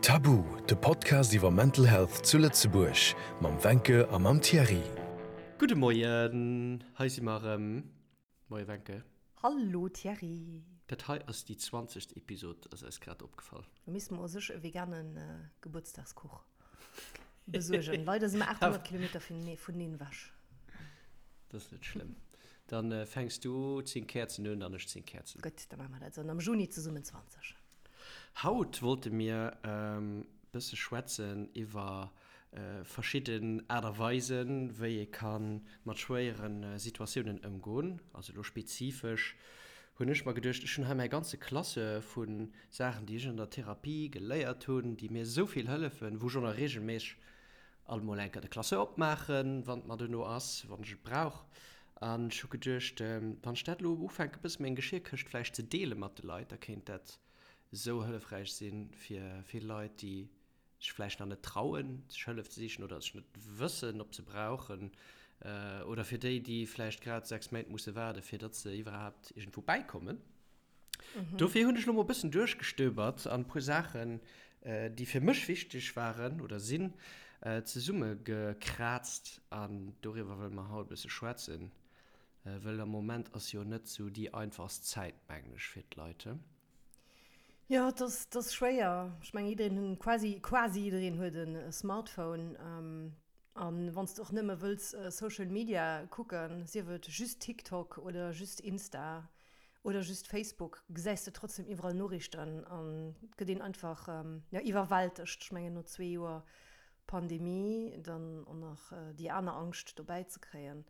Tabu, de Podcast iwwer Mental Health zu Lëtzebuerg mam Wencke a mam Thierry. Gudde Moien, hei si mer erëm. Moie Wencke. Hallo Thierry. Dat hei ass déi zwanzegst Episod, ass eis grad opgefall. Do misste mer u sech e vegane Gebuertsdagskuch besuergen. Leider si mer 800 Kilometer vuneneen ewech. Dat ass net schlëmm. Dann fänks du 10 Käerzen un an ech 10 Käerzen. Gutt, da maache mer dat esou. An am Juni zesummen 20. Haut wollte mir e bësse schwätzen iwwer verschidden Aart a Weisen, wéi ee ka mat schwéiere Situatiounen ëmgoen. Also elo spezifesch hunn ech mer geduecht, ech hunn hei mäi ganze Classeur vu Saachen, déi ech an der Therapie geléiert hunn, déi mir esou vill hëllefen, wou ech och nach reegelméisseg alt mol eng Kéier de Classeur opmaachen, wann et mer duerno ass, wann ech et brauch. An ech hu geduecht, wann ech dat elo ufänken, e bësse meng Geschirrkëscht vläicht ze deele mat de Leit, da kéint dat esou hëllefräich si fir vill Leit, déi sech vläicht nach net trauen, sech Hëllef ze sichen oder sech net wëssen, ob se brauchen, oder fir déi, déi vläicht grad 6 Méint musse waarden, fir datt se iwwerhaapt iergendwou bäikommen. Dofir hunn ech elo mol e bëssen duerchgestöbert an e puer Saachen, déi fir mech wichteg waren oder sinn, zesummegekraazt an doriwwer wëlle mer haut e bësse schwätzen, wëll am Moment ass jo net sou déi einfachst Zäit, mengen ech, fir d'Leit, he? Jo, et ass, et ass schwéier. Ech mengen, jiddereen, quasi, quasi jiddereen huet e Smartphone. An wann s de och nëmme wëlls Social Media kucken, sief et just TikTok oder just Insta, oder just Facebook, gesäis de trotzdem iwwerall Noriichten an et gëtt een einfach, jo, iwwerwältegt. Ech mengen no zwee Joer Pandemie dann och nach déi aner Angscht dobäi ze kréien,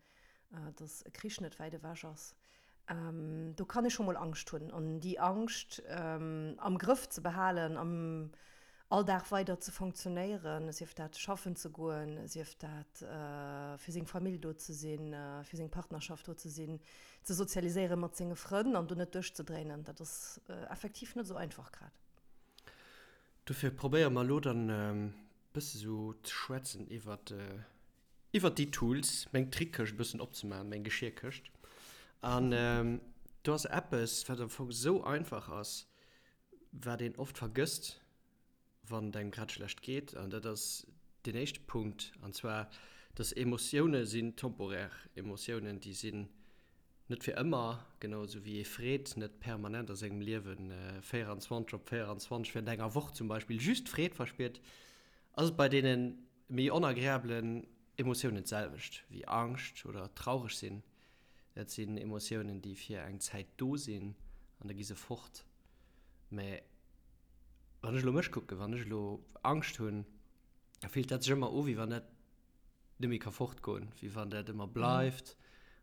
dass e Krich net wäit ewech ass, do kann ee scho mol Angscht hunn. An déi Angscht am Grëff ze behalen, am all Dag weider ze fonctionnéieren, sief dat schaffen ze goen, sief dat fir seng Famill do ze sinn, fir seng Partnerschaft do ze sinn, ze sozialiséiere mat senge Frënn an do net duerchzedréinen, dat ass effektiv net esou einfach grad. Dofir probéiere mer elo dann e bësse sou ze schwätzen iwwert iwwert déi Tools, meng Trickkëscht e bëssen opzemaachen, meng Geschirrkëscht. An do ass eppes, wat am Fong esou einfach ass, Wat een oft vergësst, wann et engem grad schlecht geet, an dat ass deen éischte Punkt, an zwar, dass Emotioune sinn temporär. Emotiounen, déi sinn net fir ëmmer, genau esou wéi ee Freed net permanent a sengem Liewe 24 op 24 während enger Woch zum Beispill just Freed verspiert, ass et bei deene méi onagreabelen Emotiounen d'selwecht, wéi Angscht oder traureg sinn. Dat sinn Emotiounen, déi fir eng Zäit do sinn an da gi se fort. Mä wann ech elo mech kucken, wann ech elo Angscht hunn, da fillt dat sech ëmmer u wéi wann dat net méi ka fortgoen, wéi wann dat ëmmer bleift.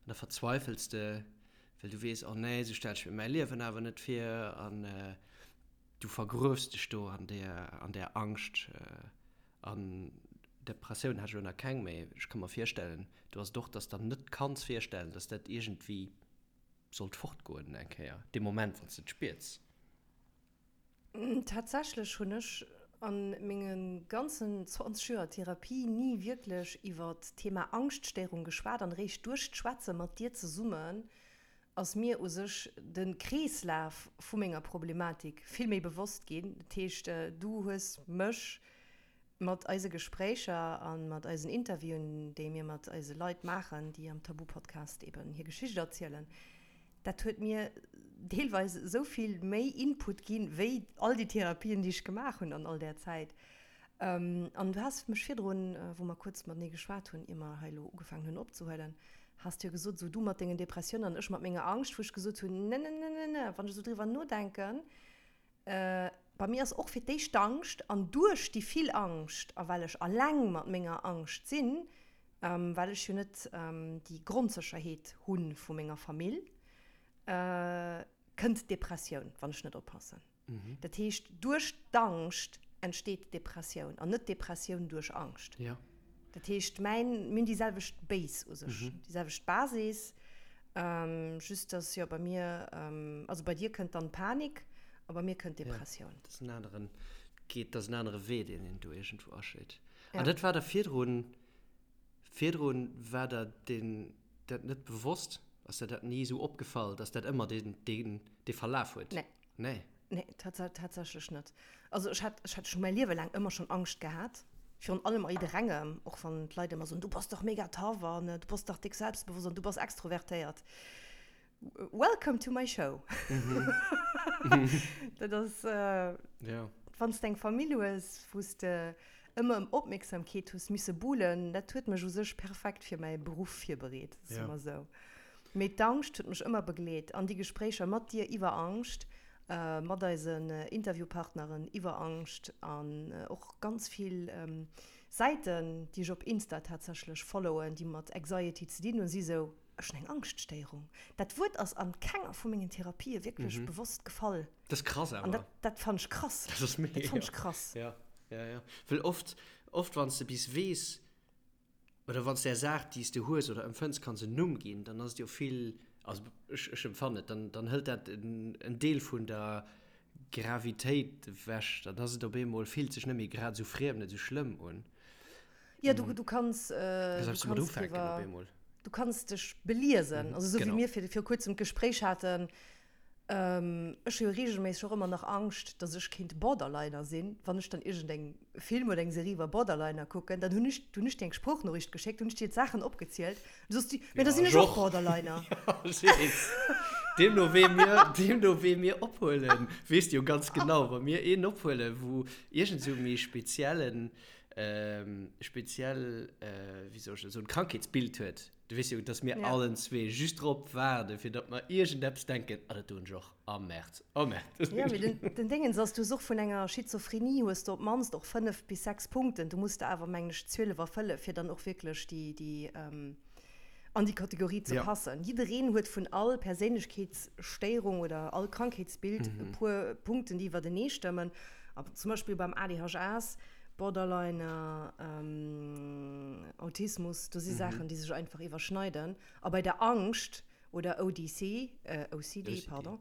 An da verzweifels de, well du weess, oh nee, esou stelle ech mir mäi Liewen awer net vir. An du vergruefs dech do an där, an där Angscht. An Depressioun hat ech elo nach keng, mä ech ka mer virstellen, do ass et och, dass der net kanns virstellen, dass dat iergendwéi sollt fortgoen eng Kéier, dee Moment, wann s de et spiers. Tatsächlech hunn ech a menge ganzen 20 Joer Therapie ni wierklech iwwer d'Thema Angschtstéierung geschwat an eréischt duerch d'Schwätze mat dir zesummen ass mir u sech de Kreeslaf vu menger Problematik vill méi bewosst ginn. Dat heescht, du hues mech mat eise Gespréicher a mat eisen Interviewen, déi mir mat eise Leit maachen, déi am Tabu-Podcast eben hir Geschicht erzielen, dat huet mir deelweis esou vill méi Input ginn, wéi all déi Therapien, déi ech gemaach hunn an all där Zäit. An du has mech virdrun, wou mer kuerz matenee geschwat hunn, ier mer hei elo ugefaangen hunn opzehuelen, has du jo gesot, esou du mat dengen Depressiounen an ech mat menger Angscht, wou ech gesot hunn, ne, ne, ne, ne, ne, wann ech esou driwwer nodenken, bei mir ass och fir d'éischt d'Angscht an duerch déi vill Angscht a well ech alleng mat menger Angscht sinn, well ech jo net déi Grondsécherheet hu vu menger Famill, kënnt d'Depressioun, wann ech net oppassen. Dat heescht, duerch d'Angscht entsteet d'Depressioun an net d'Depressioun duerch Angscht. Dat heescht, mäin, mir hunn déi selwecht Base u sech, déi selwecht Basis, just dass jo bei mir, also bei dir kënnt dann d'Panik a bei mir kënnt d'Depressioun. Dat ass en aneren, geet, dat ass en anere Wee, deen een do iergendwou aschléit. An dat war der virdrun, virdrun war der deen, dat net bewosst? Ass der dat ni esou opgefall, dass dat ëmmer deen, deen, dee Verlaf huet? Nee. Nee. Nee, tatsächlech net. Also ech hat, ech hat schon mäi Liewe laang ëmmer schon Angscht gehat, virun allem a jidderengem, och wann d'Leit ëmmer soen, du bass dach mega tough an du bass dach déck selbstbewosst an du bass extrovertéiert. Welcome to my show. Dat ass, wann s de eng Famill hues, wou s de ëmmer ëm Opmierksamkeet hues misse buhlen, dat huet mech u sech perfekt fir mäi Beruff virbereet, soe mer esou. Mee d'Angscht huet mech ëmmer begleet an déi Gespréicher mat dir iwwer Angscht, mat eisen Interviewpartneren iwwer Angscht an och ganz vill Säiten, déi ech op Insta tatsächlech followen, déi mat Anxiety ze dinn hunn, si sou, Ech hunn eng Angschtstéierung. Dat Wuert ass an kenger vu mengen Therapië wierklech bewosst gefall. Dat ass krass awer. An dat, dat fannen ech krass. Dat ass mega. Dat fannen ech krass. Ja, ja, ja. Well oft, oft wann s de bis weess, oder wann s de där Saach, déi s de hues oder empfënns, kanns en Numm ginn, dann ass et jo vill, also ech, ech empfannen et, dann, dann hëlt dat en, en Deel vun der Gravitéit ewech. Dann ass et op eemol, fillt sech net méi grad esou friem, net esou schlëmm un. Ja, du, du kanns, äh, du kanns driwwer, du kanns dech beliesen. Also esou wéi mir fir, viru kuerzem d'Gespréich haten, ähm, ech hu jo reegelméisseg och ëmmer nach Angscht, datt ech kéint Borderliner sinn, wann ech dann iergendeng Film oder eng Serie iwwer Borderliner kucken, dann hunn ech, hunn ech dir eng Sproochnoriicht geschéckt, hunn ech dir d'Saachen opgezielt, du soss du, mä da sinn ech och Borderliner. Deemno wee mir, deemno wee mir ophuelen, weess de jo ganz genau, wa mir een ophuelen, wou iergend esou méi speziellen, speziell, wéi soll ech dat soen, Krankheetsbild huet, du weess jo, dass mir allen zwee just drop waarden, fir datt mer iergendeppes denken, ah, dat doen ech och, ah Merd, oh Merd. Jo, mee den, den Déngens ass, du hues och vun enger Schizophrenie hues de op d'mannst och 5 bis 6 Punkten, du muss der awer, mengen ech, 12 erfëlle fir dann och wierklech déi, déi an déi Kategorie ze passen. Jiddereen huet vun all Perséinlechkeetsstéierung oder all Krankheetsbild e puer Punkten, déi iwwertenee stëmmen. A zum Beispill beim ADHS, Borderliner, Autismus, do si Saachen, déi sech einfach iwwerschneiden. A bei der Angscht oder ODC, OCD, pardon,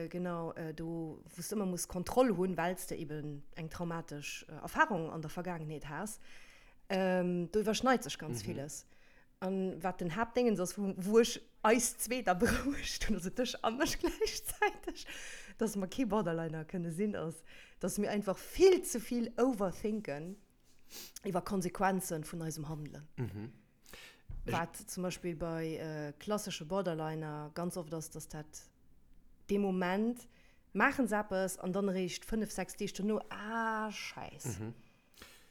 genau, do wou s de ëmmer muss Kontroll hunn, well s de eben eng traumatesch Erfarung an der Vergaangenheet has, do iwwerschneit sech ganz villes. An wat den Haaptdéngens ass, wou, wou ech eis zwee da berouegt hunn, also dech a mech gläichzäiteg, dass mer kee Borderliner kënne sinn, ass, dass mir einfach vill ze vill overthinken iwwer Konsequenzen vun eisem Handelen. Wat zum Beispill bei klassesche Borderliner ganz oft ass, dass dat dee Moment maachen se eppes an dann eréischt 5, 6 Deeg dono, ah Schäiss.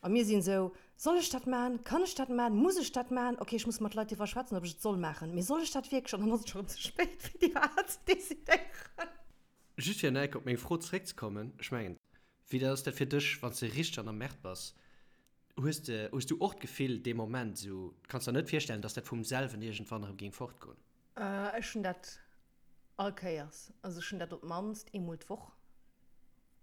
A mir sinn esou, Soll ech dat maachen? Kann ech dat maachen? Muss ech dat maachen? Ok, ech muss mat Leit driwwer schwätzen, ob ech et soll maachen. Mee soll ech dat wierklech? An dann ass et scho rëm ze spéit, fir déi Wahl ze decidéieren. Just fir enk op meng Fro zeréckzekommen, ech mengen, wéi ass dat fir dech, wann s de richteg an der Merde bass? Hues de, hues du och d'Gefill dee Moment esou, kanns der net virstellen, dass dat vum selwen iergendwann erëm géing fortgoen? Ech hunn dat all Kéiers. Also ech hunn dat op d'mannst eemol d'Woch.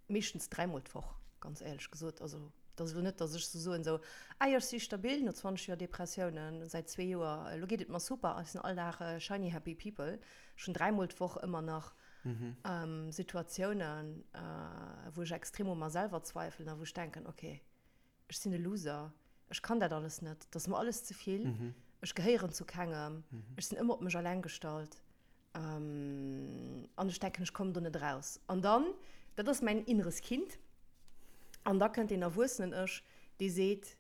Meeschtens dräimol d'Woch, ganz éierlech gesot. Also, et ass elo net, datt ech sou soen, sou, ah jo, ech si stabil no 20 Joer Depressiounen, säit zwee Joer, elo geet et mer super, ech sinn all Dag shiny happy people. Ech hunn dräimol d'Woch ëmmer nach Situatiounen, wou ech extrem u mer selwer zweifelen a wou ech denken, okay, ech sinn e Loser, ech kann dat alles net, et ass mer alles ze vill, ech gehéieren zu kengem, ech sinn ëmmer op mech alleng gestallt. An ech denken, ech kommen do net eraus. An dann, dat ass mäin inneres Kind, an da kënnt deen erwuessenen Ech, dee seet,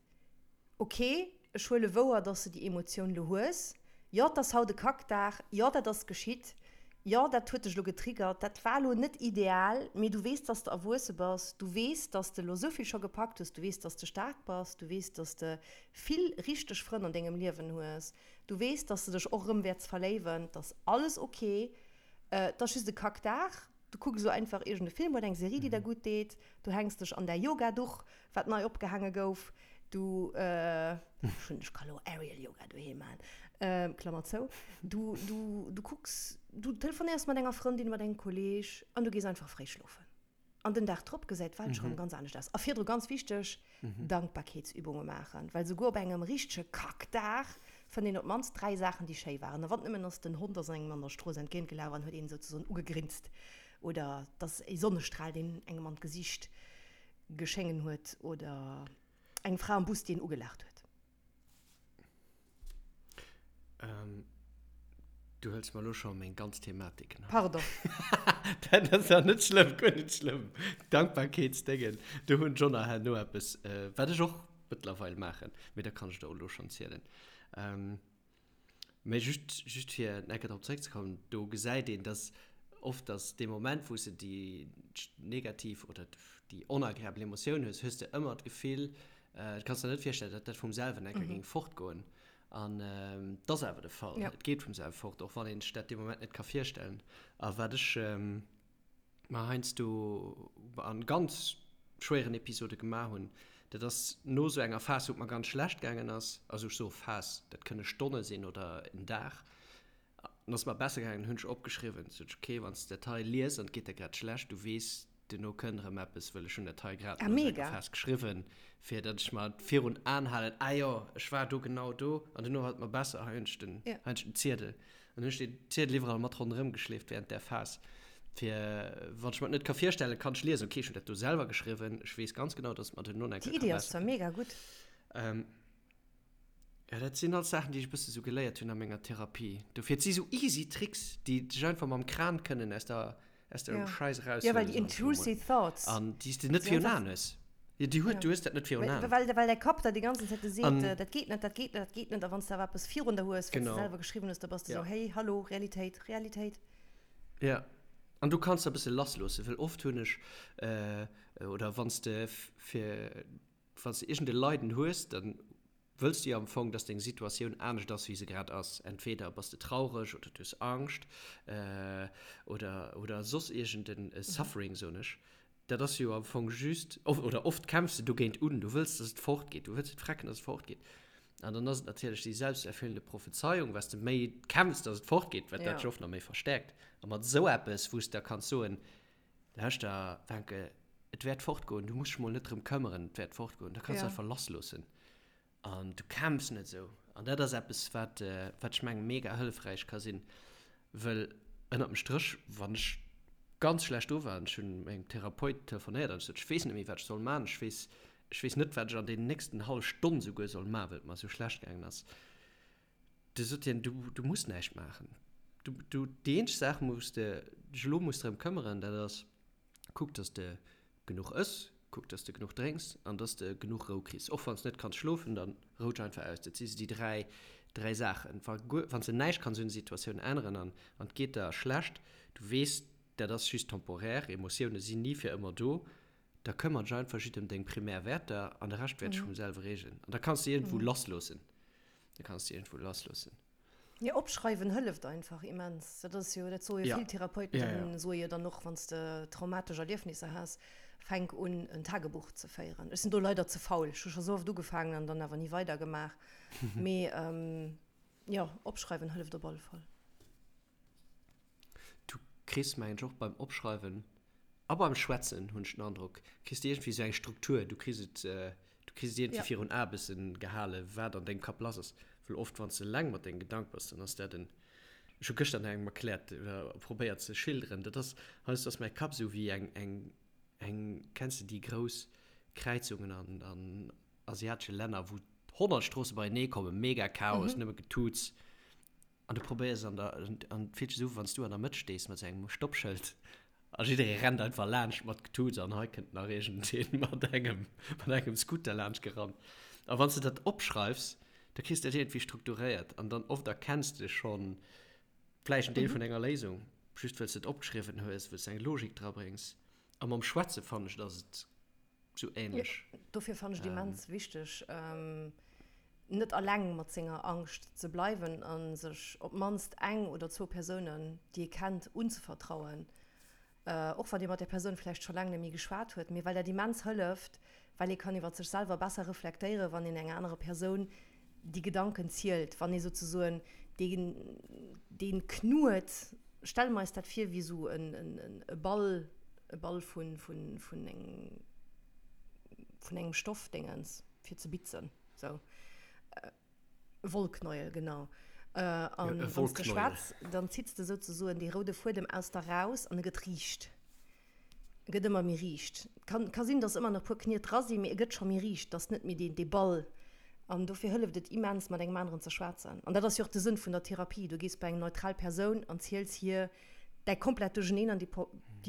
Ok, ech huele wouer, dass de déi Emotioun elo hues. Jo, 't ass haut e Kackdag. Jo, dat ass geschitt. Jo, dat huet dech elo getriggert. Dat war elo net ideal, mee du weess, dass de erwuesse bass. Du weess, dass de elo esou vill scho gepackt hues. Du weess, dass de staark bass. Du weess, dass de vill richteg Frënn an dengem Liewen hues. Du weess, dass de dech och erëm wäerts verléiwen, 't ass alles ok, 't ass just e Kackdag, du kucks elo einfach iergend e Film oder eng Serie, déi der gutt deet, du hänks dech an däi Yoga-Duch, wat nei opgehaange gouf, du, ech hunn, ech ka lo Aerial Yoga doheem maachen, Klammer zou, du, du, du kucks, du telefonéiers mat enger Frëndin, mat engem Kolleeg an du gees einfach fréi schlofen. An den Dag drop gesäit d'Welt scho rëm ganz anescht aus. A virdru, ganz wichteg, Dankbarkeetsübunge maachen, well souguer op engem richtege Kackdag fënnt een op d'mannst 3 Saachen, déi schéi waren. A wann et nëmmen ass, den Hond ass engem an der Strooss entgéintgelaf an huet een souzesoen ugegrinst oder et ass e Sonnestral, deen engem an d'Gesicht geschéngen huet oder eng Fra am Bus, déi een ugelaacht huet. Du hëls mer elo scho meng ganz Thematik. Pardon. Dat ass jo net schlëmm, guer net schlëmm. Dankbarkeetsdéngen, do hunn ech och nach herno eppes, wat ech och mëttlerweil maachen, mee da kann ech der och elo schonn zielen. Mee just, just fir eng Kéier drop zeréckzekommen, do gesäit een, dass oft, dass dee Moment, wou s de déi negativ oder déi onagreabel Emotioun hues, hues de ëmmer d'Gefill, du kanns der net virstellen, datt dat vum selwen eng Kéier géing fortgoen. An et ass awer de Fall. Ja. Et geet vum selwe fort, och wann een sech dat dee Moment net ka virstellen. A wat ech mer heiansdo an ganz schwéieren Episode gemaach hunn, dat ass no esou enger Phas, wou et mer ganz schlecht gaangen ass, also ech soe Phas, dat kënne Stonne sinn oder en Dag, an ass mer besser gaangen, hunn ech opgeschriwwen, sot ech, okay, wann s de dat hei liest an et geet der grad schlecht, du weess, Duerno kënnt erëm eppes, wëll ech hunn dat hei grad ah, no mega. Phas geschriwwen, fir datt ech mer virun Aen halen, ah jo, ech war do genau do an duerno war et mer besser, hei hunn ech den, ja. hei hunn ech den Ziedel. An hunn ech den Ziedel iwwerall mat ronderëm geschleeft während där Phas, fir wann ech mer et net ka virstellen, kann ech liesen, okay, ech hunn dat do selwer geschriwwen, ech weess ganz genau, datt et mer duerno nach eng Kéier ka besser ginn. Déi Iddi ass zwar mega gutt. Ähm, ja, dat sinn alles Saachen, déi ech e bësse sou geléiert hunn a menger Therapie. Dofir, et si sou easy Tricks, déi dech einfach mam Kran kënnen aus der aus dem ja. Scheiß raus. Ja, well déi intrusive thoughts. An déi s de net virun Aen hues. Ja, déi huet, du hues dat net virun Aen. Well, well däi Kapp der déi ganzen Zäit seet, An, dat geet net, dat geet net, dat geet net. A wann s de awer eppes virun der hues, wat s de selwer geschriwwen hues, da bass de ja. sou, hey, hallo, Realitéit, Realitéit. Ja. An du kanns da e bësse lassloossen, well oft hunn ech, äh, oder wann s de fir, wann s de iergend e Leiden hues, dann wëlls du jo am Fong, dass deng Situatioun anescht ass, wéi se grad ass. Entweder bass de traureg oder du hues Angscht oder, oder soss iergend e Suffering, soen ech. Dat ass jo am Fong just, oder oft kämpfs de dogéint un, du wëlls, dass et fortgeet, du wëlls et frecken, dass et fortgeet. An dann ass et natierlech déi selbsterfüllende Prophezeiung, wat s de méi kämpfs, dass et fortgeet, wat dat sech oft nach méi verstäerkt. A mat esou eppes, wou s de da kanns soen, Lauschter, Wencke, et wäert fortgoen, du muss dech mol net drëm këmmeren, et wäert fortgoen. Da kanns du einfach lassloossen an du kämpfs net esou. An dat ass eppes, wat, wat ech mengen, mega hëllefräich ka sinn, wëll ënnert dem Stréch, wann ech ganz schlecht do war an ech hunn mengem Therapeut telefonéiert an ech sot, ech weess net méi, wat ech soll man, ech weess, ech weess net, wat ech an deenen nächsten hallef Stonn souguer soll man, well et mer esou schlecht gaangen ass. Du sot hien, du, du muss näischt maachen. Du, du, déi eenzeg Saach, wou s de dech elo muss drëm këmmeren, dat ass, kuck, dass de genuch ëss, kuck, dass de genuch drénks an dass de genuch Rou kriss. Och wann s de net kanns schlofen, dann rou dech einfach aus. Dat si sou déi dräi, dräi Saachen. Wa guer, wann s de näischt kanns un der Situatioun änneren an, an et geet der schlecht, du weess, dat ass just temporaire, Emotioune sinn ni fir ëmmer do, da këmmer dech einfach just ëm deng primär Wäerter an de Rescht wäert sech vum selwe reegelen. An da kanns de iergendwou lassloossen. Da kanns de iergendwou lassloossen. Jo, opschreiwen hëlleft einfach immens. Dat ass jo, dat soe jo vill Therapeuten, Ja, ja. soe jo dann och, wann s de traumatesch Erliefnisser has, fänk un en Tagebuch ze féieren. Ech sinn do leider ze faul. Ech hu scho sou oft ugefaangen an dann awer ni weidergemaach. Mee jo, opschreiwen hëlleft op alle Fall. Du kriss, mengen ech, och beim Opschreiwen a beim Schwätzen, hunn ech den Androck, kriss de iergendwéi esou eng Struktur. Du kriss et, du kriss et iergendwéi Ja. virun Ae bëssen gehale, wat an dengem Kapp lass ass. Well oft, wann s de eleng mat denge Gedanke bass, dann ass dat en, ech hu gëschter nach engem erkläert oder probéiert ze schilderen, dat ass, heiansdo ass mäi Kapp esou wéi eng, eng, eng, kenns de déi grouss Kräizungen an, an asiatesche Länner, wou 100 Stroosse beienee kommen, mega Chaos, nëmme Getuuts. An du probéiers an der, an et fillt sech esou u wann s du an der Mëtt stees mat sou engem Stoppschëld a jidderee rennt einfach laanscht mat Getuuts an hei kënnt nach iergendeen mat engem, mat engem Scooter laanscht gerannt. A wann s de dat opschreifs, da kriss de dat iergendwéi strukturéiert an dann oft erkenns de schonn vläicht en Deel vun enger Léisung, just wëll s de et opgeschriwwen hues, wëll s de eng Logik drabréngs. A mam Schwätze fannen ech, et ass et sou ähnlech. Jo, dofir fannen ech et immens wichteg, net alleng mat senger Angscht ze bleiwen a sech op d'mannst eng oder zwou Persounen, déi ee kennt, unzevertrauen, och wann ee mat där Persoun vläicht scho laang net méi geschwat huet, mee well dat immens hëlleft, well ee kann iwwer sech selwer besser reflektéieren, wann een enger anerer Persoun déi Gedanken zielt, wann ee souzesoen deen, dee Knuet, stelle mer eis dat vir wéi esou e Ball, e Ball vun, vun, vun eng, vun engem Stoffdéngens fir ze bitzen, sou e Wollknäuel, genau. An wann s de schwätz, dann zitts de souzesoen dee roude Fuedem aus der raus an e gëtt riicht. E gëtt ëmmer méi riicht. Kann, ka sinn, dass ëmmer nach e puer Kniet dra sinn, mee e gëtt scho méi riicht, dass net méi deen, dee Ball. An dofir hëlleft et immens, mat engem aneren ze schwätzen. An dat ass jo och de Sënn vun der Therapie, Du gees bei eng neutral Persoun an ziels hir däi komplett Duercheneen an déi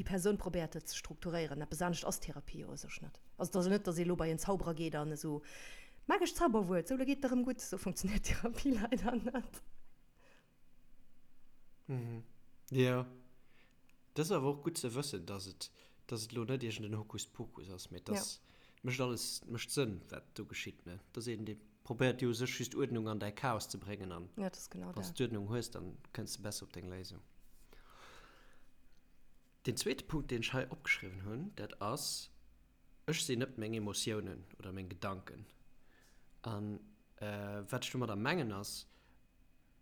Persoun probéiert et ze strukturéieren. Eppes anescht ass Therapie jo u sech net. Also et ass jo net, datt ee lo bei en Zauberer geet an esou, Magescht Zauberwuert, sou, lo geet et der erëm gutt. Esou funktionéiert Therapie leider net. Jo, dat ass awer och gutt ze wëssen, dass et, dass et elo net iergend en Hokuspokus ass, mee dass et mécht alles, et mécht Sënn, wat do geschitt, ne? Et ass een, dee probéiert jo u sech just Uerdnung an däi Chaos ze bréngen an Ja, dat ass genau wann s dat. de d'Uerdnung hues, dann kënns de besser op deng Léisung. Deen zweete Punkt, deen ech hei opgeschriwwen hunn, dat ass, Ech sinn net meng Emotiounen oder meng Gedanken. An wat ech domadder mengen ass,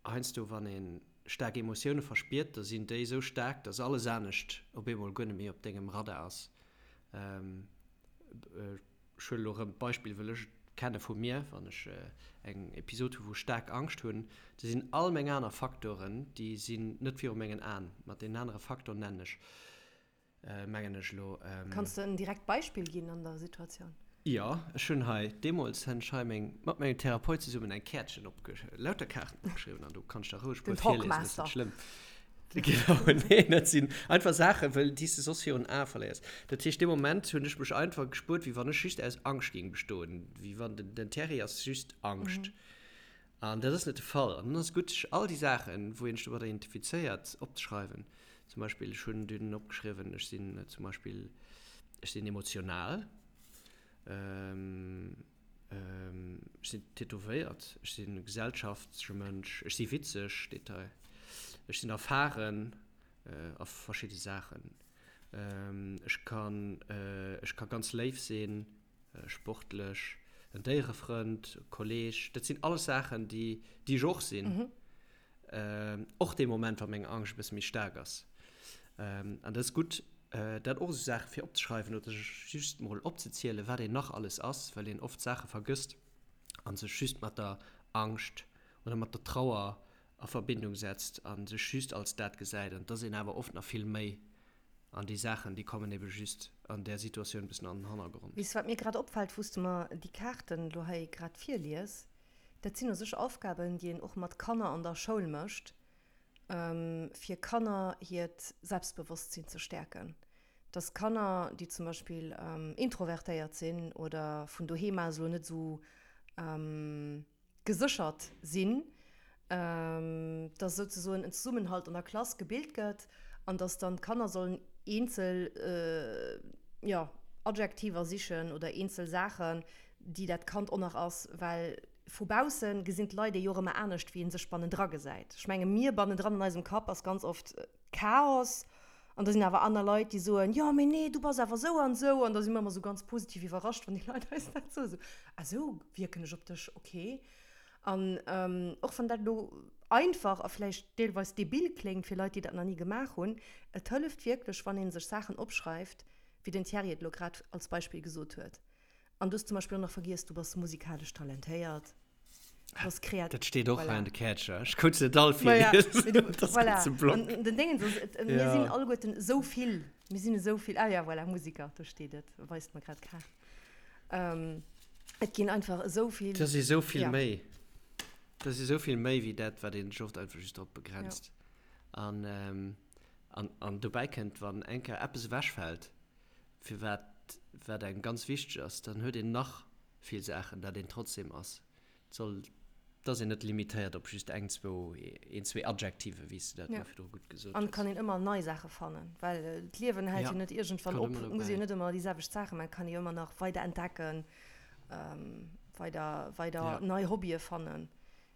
Heiansdo wann ee staark Emotioune verspiert, da sinn déi esou staark, dass alles anescht op eemol guer net méi op dengem Radar ass. Ech huelen elo erëm d'Beispill, wëll ech et kenne vu mir, wann ech eng Episod hu wou ech staark Angscht hunn, da sinn all meng aner Faktoren, déi sinn net viru mengen Aen. Mat deenen anere Faktor nennen ech mengen ech elo. Kanns de en direkt Beispill ginn an der Situatioun? Jo, ech hunn hei, deemools hunn ech hei meng, mat mengem Therapeut zesummen eng Käertchen opge, lauter Kaarten opgeschriwwen an do kann ech der roueg e Den puer virliesen, dat ass Talkmaster. net schlëmm. Genau, nee, dat sinn einfach Saachen, wëll déi s de soss virun Ae verléiers. Dat heescht, dee Moment hunn ech mech einfach gespuert, wéi wann ech just aus Angscht géing bestoen, wéi wann den, den Terry ass just Angscht. An dat ass net de Fall. An dann ass et gutt, sech all déi Saachen, wou een sech domadder identifizéiert, opzeschreiwen. Zum Beispill, ech hunn dunn opgeschriwwen, ech sinn zum Beispill, ech sinn emotional, ech sinn tätowéiert, ech sinn e gesellschaftleche Mënsch, ech si witzeg, steet hei, ech sinn erfaren a verschidde Saachen, ech kann, ech ka ganz léif sinn. sportlech, en Déierefrënd, e Kolleeg, dat sinn alles Saachen, déi, déi ech och sinn. Och dee Moment, wa meng Angscht e bësse méi staark ass. An dat ass gutt, dat och esou Saache fir opzeschreiwen oder sech just mol opzezielen, wat een nach alles ass, well een oft Saache vergësst a sech just mat der Angscht oder mat der Trauer a Verbindung setzt a sech just als dat gesäit. An et ass een awer oft nach vill méi. An déi Saachen, déi kommen ebe just an där Situatioun e bëssen an den Hannergrond. Weess wat mir grad opfält, wou s de mer déi Kaarten elo hei grad virlies? Dat sinn u sech Aufgaben, déi een och mat Kanner an der Schoul mécht, fir Kanner hiert Selbstbewosstsinn ze stäerken. Dass Kanner, déi zum Beispill introvertéiert sinn oder vun doheem aus elo net esou Geséchert sinn, dass souzesoen en Zesummenhalt an der Klass gebilt gëtt an dass dann d'Kanner sollen eenzel, jo, Adjektiver sichen oder eenzel Saachen, déi dat Kand och nach ass, well vu bausse gesinn d'Leit ee jo och ëmmer anescht, wéi ee sech bannendra gesäit. Ech menge mir bannendran an eisem Kapp ass ganz oft Chaos an da sinn awer aner Leit, déi soen, jo mee nee, du bass awer esou an esou an da si mer ëmmer esou ganz positiv iwwerrascht, wann déi Leit eis dat soen, esou, ah esou wierken ech op dech, ok. An och wann dat elo einfach a vläicht deelweis debil kléngt fir Leit, déi dat nach ni gemaach hunn, et hëlleft wierklech, wann ee sech Saachen opschreift, wéi den Thierry et elo grad als Beispill gesot huet. An du hues zum Beispill och nach vergiess, du bass musikalesch talentéiert, du bass kreativ. Dat steet och Voilà. hei an de Käercher. Ech konnt se net all Maja, virliesen. mee du, Dat ass voilà. ganz e Block. An den Déngens ass, et, mir Ja. sinn alleguerten esou vill. Mir sinn esou vill. Ah ja, voilà, Musiker, do steet et, weist mer grad d'Kaart. Ähm, et ginn einfach esou vill. Dat ass esou vill Ja. méi. Dat ass esou vill méi wéi dat, wat een sech oft einfach just drop begrenzt. Ja. An, ähm, an, an dobäi kënnt, wann eng Kéier eppes ewechfält, firwat wat engem ganz wichteg ass, dann huet een nach vill Saachen, dat een trotzdem ass. Et soll, et ass een net limitéiert op just eng, zwou, een, zwee Adjektive, wéi s de dat Ja. elo virdru gutt gesot An et hues. kann een ëmmer nei Saache fannen, well d'Liewen hält Ja, jo net iergendwann kann op. ëmmer Et muss ee dobäi. jo net ëmmer déi selwecht Saache maachen, et kann ee jo ëmmer nach weider entdecken, weider, weider Ja. nei Hobbye fannen.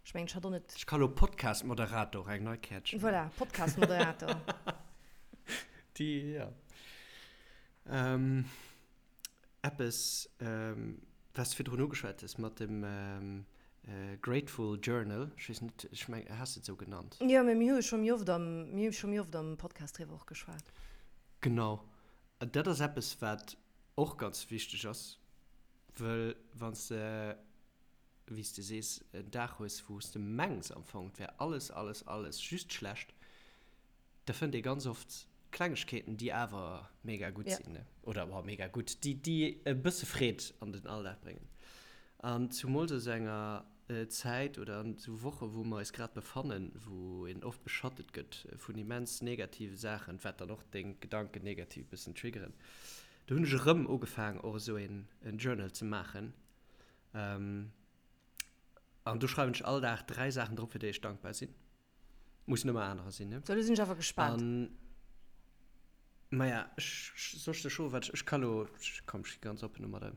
Ech mengen, ech hat och net. Ech ka lo Podcast-Moderator, eng nei Käertchen. Voilà, Podcast-Moderator. Déi, ja. Eppes, wat s de virdrun ugeschwat hues mat dem Grateful Journal, ech weess net, ech meng, has de et esou genannt? Jo, mä mir hu jo scho méi oft am, mir hu scho méi oft am Podcast driwwer och geschwat. Genau. Dat ass eppes, wat och ganz wichteg ass, wëll wann s de, wéi s de sees, en Dag hues, wou s de mengs am Fong, et wär alles, alles, alles just schlecht, Da fënnt ee ganz oft Klengegkeeten, déi awer mega gutt Ja. sinn, ne? Oder, boah, mega gutt, déi, déi e bësse Freed an den Alldag bréngen. An zumools a sou enger Zäit oder an sou Woche wou mer eis grad befannen, wou een oft beschattet gëtt vun immens negative Saachen, wat dann och deng Gedanken negativ e bëssen triggeren, do hunn ech erëm ugefaang och esou een Journal ze maachen. An do schreiwen ech all Dag 3 Saachen drop, fir déi ech dankbar sinn. Mussen ëmmer anerer sinn, ne? So, lo sinn ech awer gespaant. An, maja, ech, soll ech der scho wat, ech ka lo, komm, ech gi ganz oppen domadder.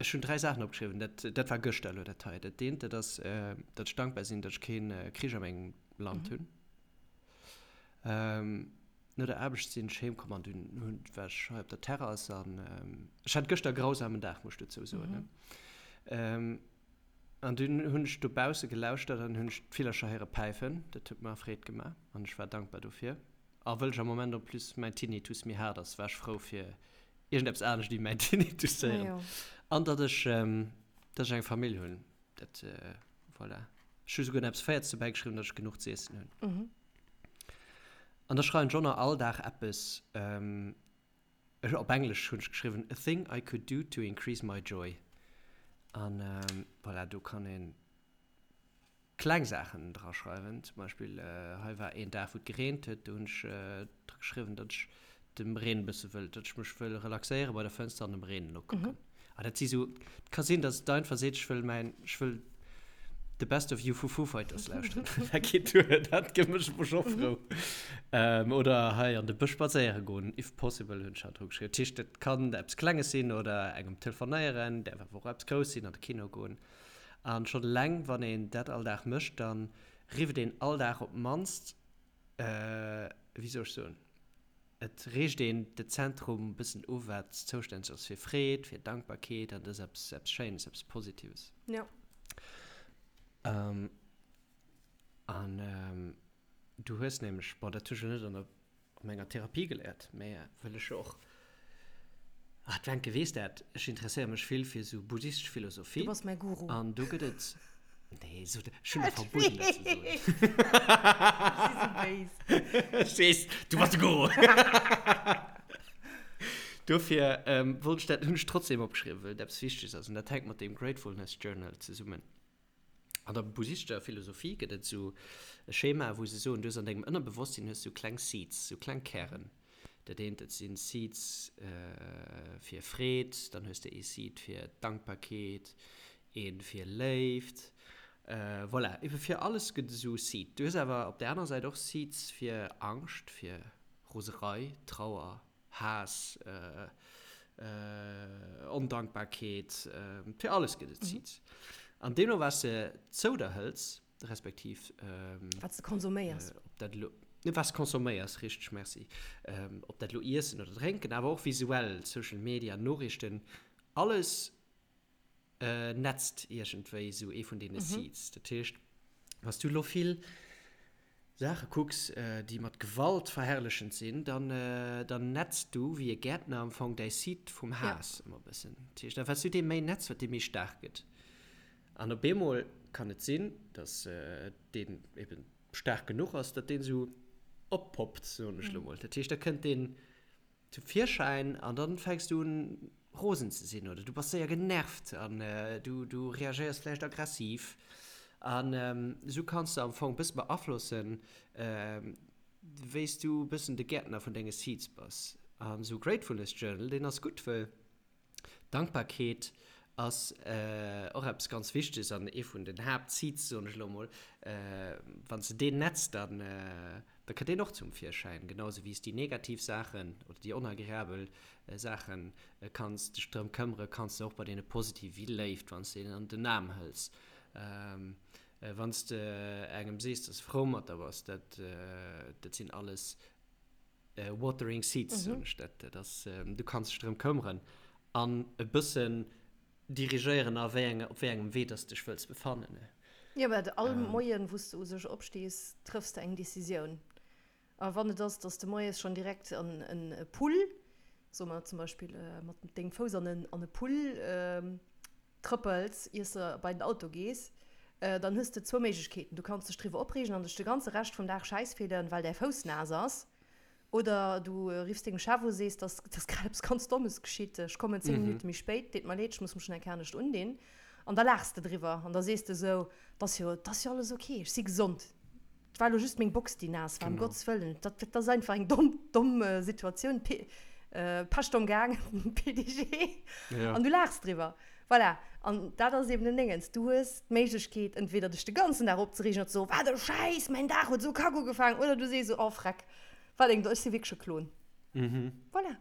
Ech hunn 3 Saachen opgeschriwwen, dat, dat war gëschter elo dat hei. Dat eent, dat ass, datt ech dankbar sinn, datt ech kee Krich a mengem Land hunn. No der Aarbecht sinn ech heem komm an dunn hunn, war ech hei op der Terrass an ech hat gëschter e grausamen Dag, muss ech dozou soen, ne. An dunn hunn ech dobausse gelauschtert an hunn ech d'Villercher héiere päifen. Dat huet mer Freed gemaach an ech war dankbar dofir. A wëll ech am Moment en plus mäin Tinnitus méi haart ass, war ech frou fir iergendeppes anescht wéi mäin Tinnitus ze héieren. An datt ech, datt ech eng Famill hunn. Dat, voilà. Ech hu souguer nach eppes Véierts dobäi geschriwwen, datt ech genuch z'iessen hunn. An da schreiwen ech och nach all Dag eppes, ech, op Englesch hunn ech geschriwwen, A thing I could do to increase my joy. An voilà, do kann een kleng Saachen dra schreiwen. Zum Beispill, hei war een Dag, wou et gereent huet, do hunn ech dra geschriwwen, datt ech dem Reen e bësse wëll, datt ech mech wëll relaxéiere bei der Fënster an dem Reen nokucken. Ah, dat si sou, et ka sinn, datt et einfach seet, ech wëll mäin, ech wëll The Best of You vu Foo Fighters lauschteren. Dat geet duer, dat mécht mech och frou. Oder hei an de Bësch spadséiere goen, if possible, hunn ech haut dru geschriwwen. Dat heescht, et kann eppes Klenges sinn oder engem telefonéieren, däerf awer och eppes Grousses sinn, an de Kino goen. An schonn eleng, wann een dat all Dag mécht, da rifft een all Dag op d'mannst, wéi soll ech soen, et reegt een de Zentrum e bëssen u wat zoustänneg ass fir Freed, fir Dankbarkeet an dat ass eppes, eppes Schéines, eppes Positives. Jo. An du hues nämlech, bon dat hu ech elo net an der an menger Therapie geléiert, mä wëll ech jo och, ah d'Wencke weess dat, ech interesséiere mech vill fir esou buddhistesch Philosophie. Du bass mäi Guru. An do gëtt et, nee, so, ech hunn der verbueden dat ze soen. Ech si sou béis. Ech weess, du bass de Guru. Dofir wollt ech dat, hunn ech trotzdem opgeschriwwen, well et eppes Wichteges ass an dat hänkt mat deem Gratefulness Journal zesummen. An der buddhistescher Philosophie gëtt et esou e Schema, wou se soen, du hues an dengem Ënnerbewosstsinn hues du kleng Seeds, sou kleng Kären. Dat eent, dat sinn Seeds fir Freed, dann hues de ee Seed fir Dankbarkeet, ee fir Léift, voilà, ebe fir alles gëtt et esou Seed. Du hues awer op där anerer Säit och Seeds fir Angscht, fir Roserei, Trauer, Haass, Ondankbarkeet, fir alles gëtt et Seeds. An deemno wat s de zou der hëls, respektiv Wat s de konsuméiers. Ob dat elo, wat s de konsuméiers, richteg, merci. Ob dat elo Iessen oder Drénken, awer och visuell, Social Media, Noriichten, alles netzt iergendwéi esou ee vun deene Seeds. Dat heescht, wann s du elo vill Saache kucks, déi mat Gewalt verherrlechend sinn, dann, dann netz du wéi e Gäertner am Fong däi Seed vum Haass ëmmer e bëssen. Dat heescht, a wat s du dee méi netz, wat dee méi staark gëtt. An op eemol kann et sinn, datt deen eben staark genuch ass, datt deen esou oppoppt, soen ech elo mol. Dat heescht, da kënnt deen zum Virschäin an dann fänks du un rosen ze sinn oder du bass séier genervt an du du reagéiers vläicht aggressiv an esou kanns de am Fong bësse beaflossen wéi s du bëssen de Gäertner vun denge Seeds bass. An esou Gratefulness Journal deen ass gutt wëll Dankbarkeet ass och eppes ganz Wichteges an ee vun den Haaptseeds, soen ech elo emol. Wann s de deen netz, dann da kënnt deen och zum Virschäin, genau esou wéi s déi negativ Saachen oder déi onagreabel Saache kanns dech drëm këmmere, kanns de och bei deene positive wéi Léift, wann s de een an den Aarm hëls, wann s de engem sees, dass s frou mat der bass, dat dat sinn alles Watering Seeds, soen ech dat. Dat ass, du kanns dech drëm këmmeren an e bëssen dirigéieren a wéi enge, op wéi engem Wee dass de dech wëlls befannen. Jo, well all Moien, wou s de u sech opstees, trëffs de eng Decisioun. A wann et ass, dass de moies schonn direkt an e Pull, soe mer zum Beispill, mat dengem Fouss an e Pull trëppels, iers de bei den Auto gees, dann hues de zwou Méiglechkeeten, Du kanns dech driwwer opreegen an dech de ganze Rescht vum Dag schäiss fillen, well däi Fouss naass ass. Oder du riffs dengem Chef u, sees, dass dass grad eppes ganz Dommes geschitt, ech kommen 10 Minutte méi spéit, deet mer leed, ech muss mech nach eng Kéier anescht undinn. An da laachs de driwwer an da sees de esou, 't ass jo, 't ass jo alles ok, ech si gesond, 't war elo just meng Box, déi naass war, ëm Gottes Wëllen, dat dat ass einfach eng domm, domm Situatioun, P, Pescht am Gaang, PDG. An du laachs driwwer. Voilà. An dat ass eben den Déngens, du hues d'Méiglechkeet, entweder dech de ganzen Dag opzereegen an ze soen, wat e Schäiss, mäin Dag huet esou kack ugefaangen, oder du sees esou, oh freck, Wat eng, ech si wierklech e Klon. Voilà.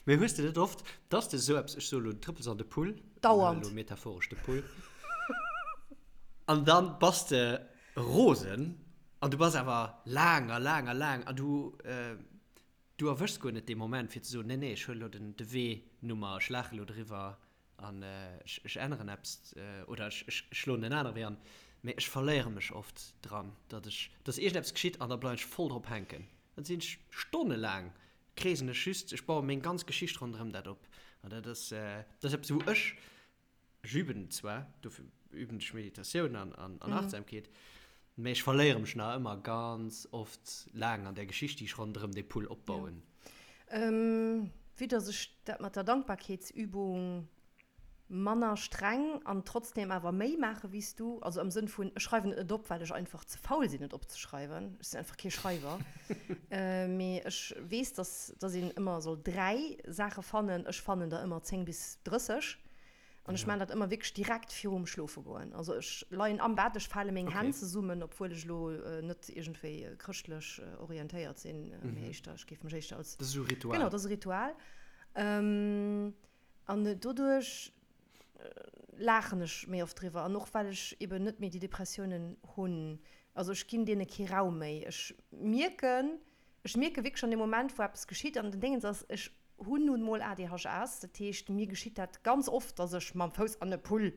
Mee hues de net oft, dass de esou eppes, ech soe lo, du trëppels an de Pull, Dauernd. Elo metaphoresch de Pull, an dann bass de rosen an du bass awer laang a laang a laang an du, du erwëschs guer net dee Moment fir ze soen, nee, nee, ech huelen elo den, de Wee Nummer, ech laache elo driwwer An ech änneren eppes oder ech schloen en anere Wee an, mee ech verléiere mech oft dran, datt ech, datt iergendeppes geschitt an da bleiwen ech voll drop hänken. Dann sinn ech stonnelaang kreesen ech just, ech baue meng ganz Geschicht ronderëm dat op. An dat ass, dat ass eppes, wou ech, ech üben zwar, dofir üben ech Meditatioun an an Achtsamkeet, mee ech verléiere mech nach ëmmer ganz oft laang an där Geschicht, déi ech ronderëm dee Pull opbauen. Vue dass ech dat mat der Dankbarkeetsübung manner streng an trotzdem awer méi maache wéi s du, also am Sënn vun, ech schreiwen et net op, well ech einfach ze faul sinn et opzeschreiwen, ech sinn einfach kee Schreiwer, mee ech weess, dass dass een ëmmer soll 3 Saache fannen, ech fannen der ëmmer 10 bis 30 An ech maachen dat ëmmer wierklech direkt virum Schlofe goen. Also ech leien am Bett, ech fale meng Hänn zesummen, obwuel ech elo net iergendwéi chrëschtlech orientéiert sinn, mee éischter, ech géif mech éischter als. Dat ass esou e Ritual. Genau, dat ass e Ritual. An doduerch laachen ech méi oft driwwer. An och well ech eben net méi déi Depressiounen hunn. Also ech ginn deene kee Raum méi. Ech mierken, Ech mierke wierklech an deem Moment, wou eppes geschitt, an den Déngens ass, ech hunn nun mol ADHS, dat heescht, mir geschitt dat ganz oft, dass ech mam Fouss an e Pull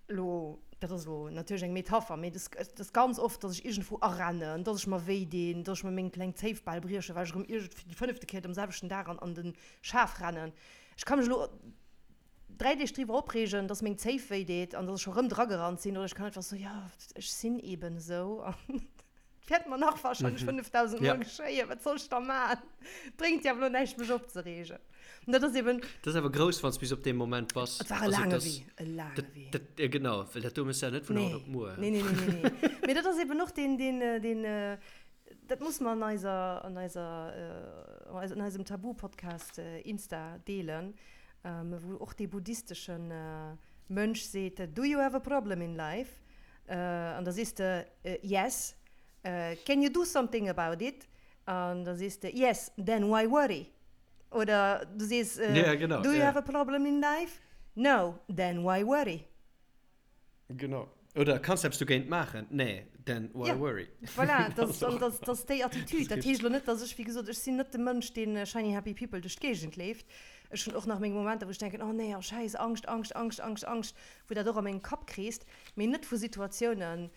elo, dat ass elo natierlech eng Metapher, mee et ass ganz oft, dass ech iergendwou arennen, dass ech mer wéi dinn, dass ech mer meng kleng Zéif bal briechen, well ech erëm iergend fir déi fënnefte Kéier dem selwechten Dag an an de Schaf rennen. Ech ka mech elo 3 Deeg driwwer opreegen, dass meng Zéif wéi deet an dass ech scho rëm dragerannt sinn, oder ech kann einfach soen, jo, ech sinn eeben esou an et wäert mer nach wahrscheinlech 5000 Mol geschéien, wat soll ech da maachen? Bréngt jo awer elo näischt mech opzereegen. An dat ass eeben. Dat ass awer grouss, wann s bis op deem Moment bass. Et war e laange Wee, e laange Wee. Dat, jo genau, well dat do méchs de ja net vun haut op muer. Nee, nee, nee, nee, nee. Mee dat ass eeben och deen, deen, deen, dat muss mer an eiser, an eiser, an eisem Tabu-Podcast Insta deelen, wou och dee buddhistesche Mönch seet, Do you have a problem in life? An da sees de, Yes. Can you do something about it? An da sees de, Yes, then why worry? Oder du sees, Do you have a problem in life? No, then why worry? Genau. Oder kanns de eppes dogéint maachen? Nee, then why worry? Voilà, dat ass déi Attitude. Dat heescht elo net, dass ech, wéi gesot, ech sinn net de Mënsch, dee shiny happy people duerch d'Géigend leeft. Ech hunn och nach meng Momenter, wou ech denken, oh nee, oh Schäiss, Angscht, Angscht, Angscht, Angscht, Angscht, wou dat och a mengem Kapp kreest, mee net vu Situatiounen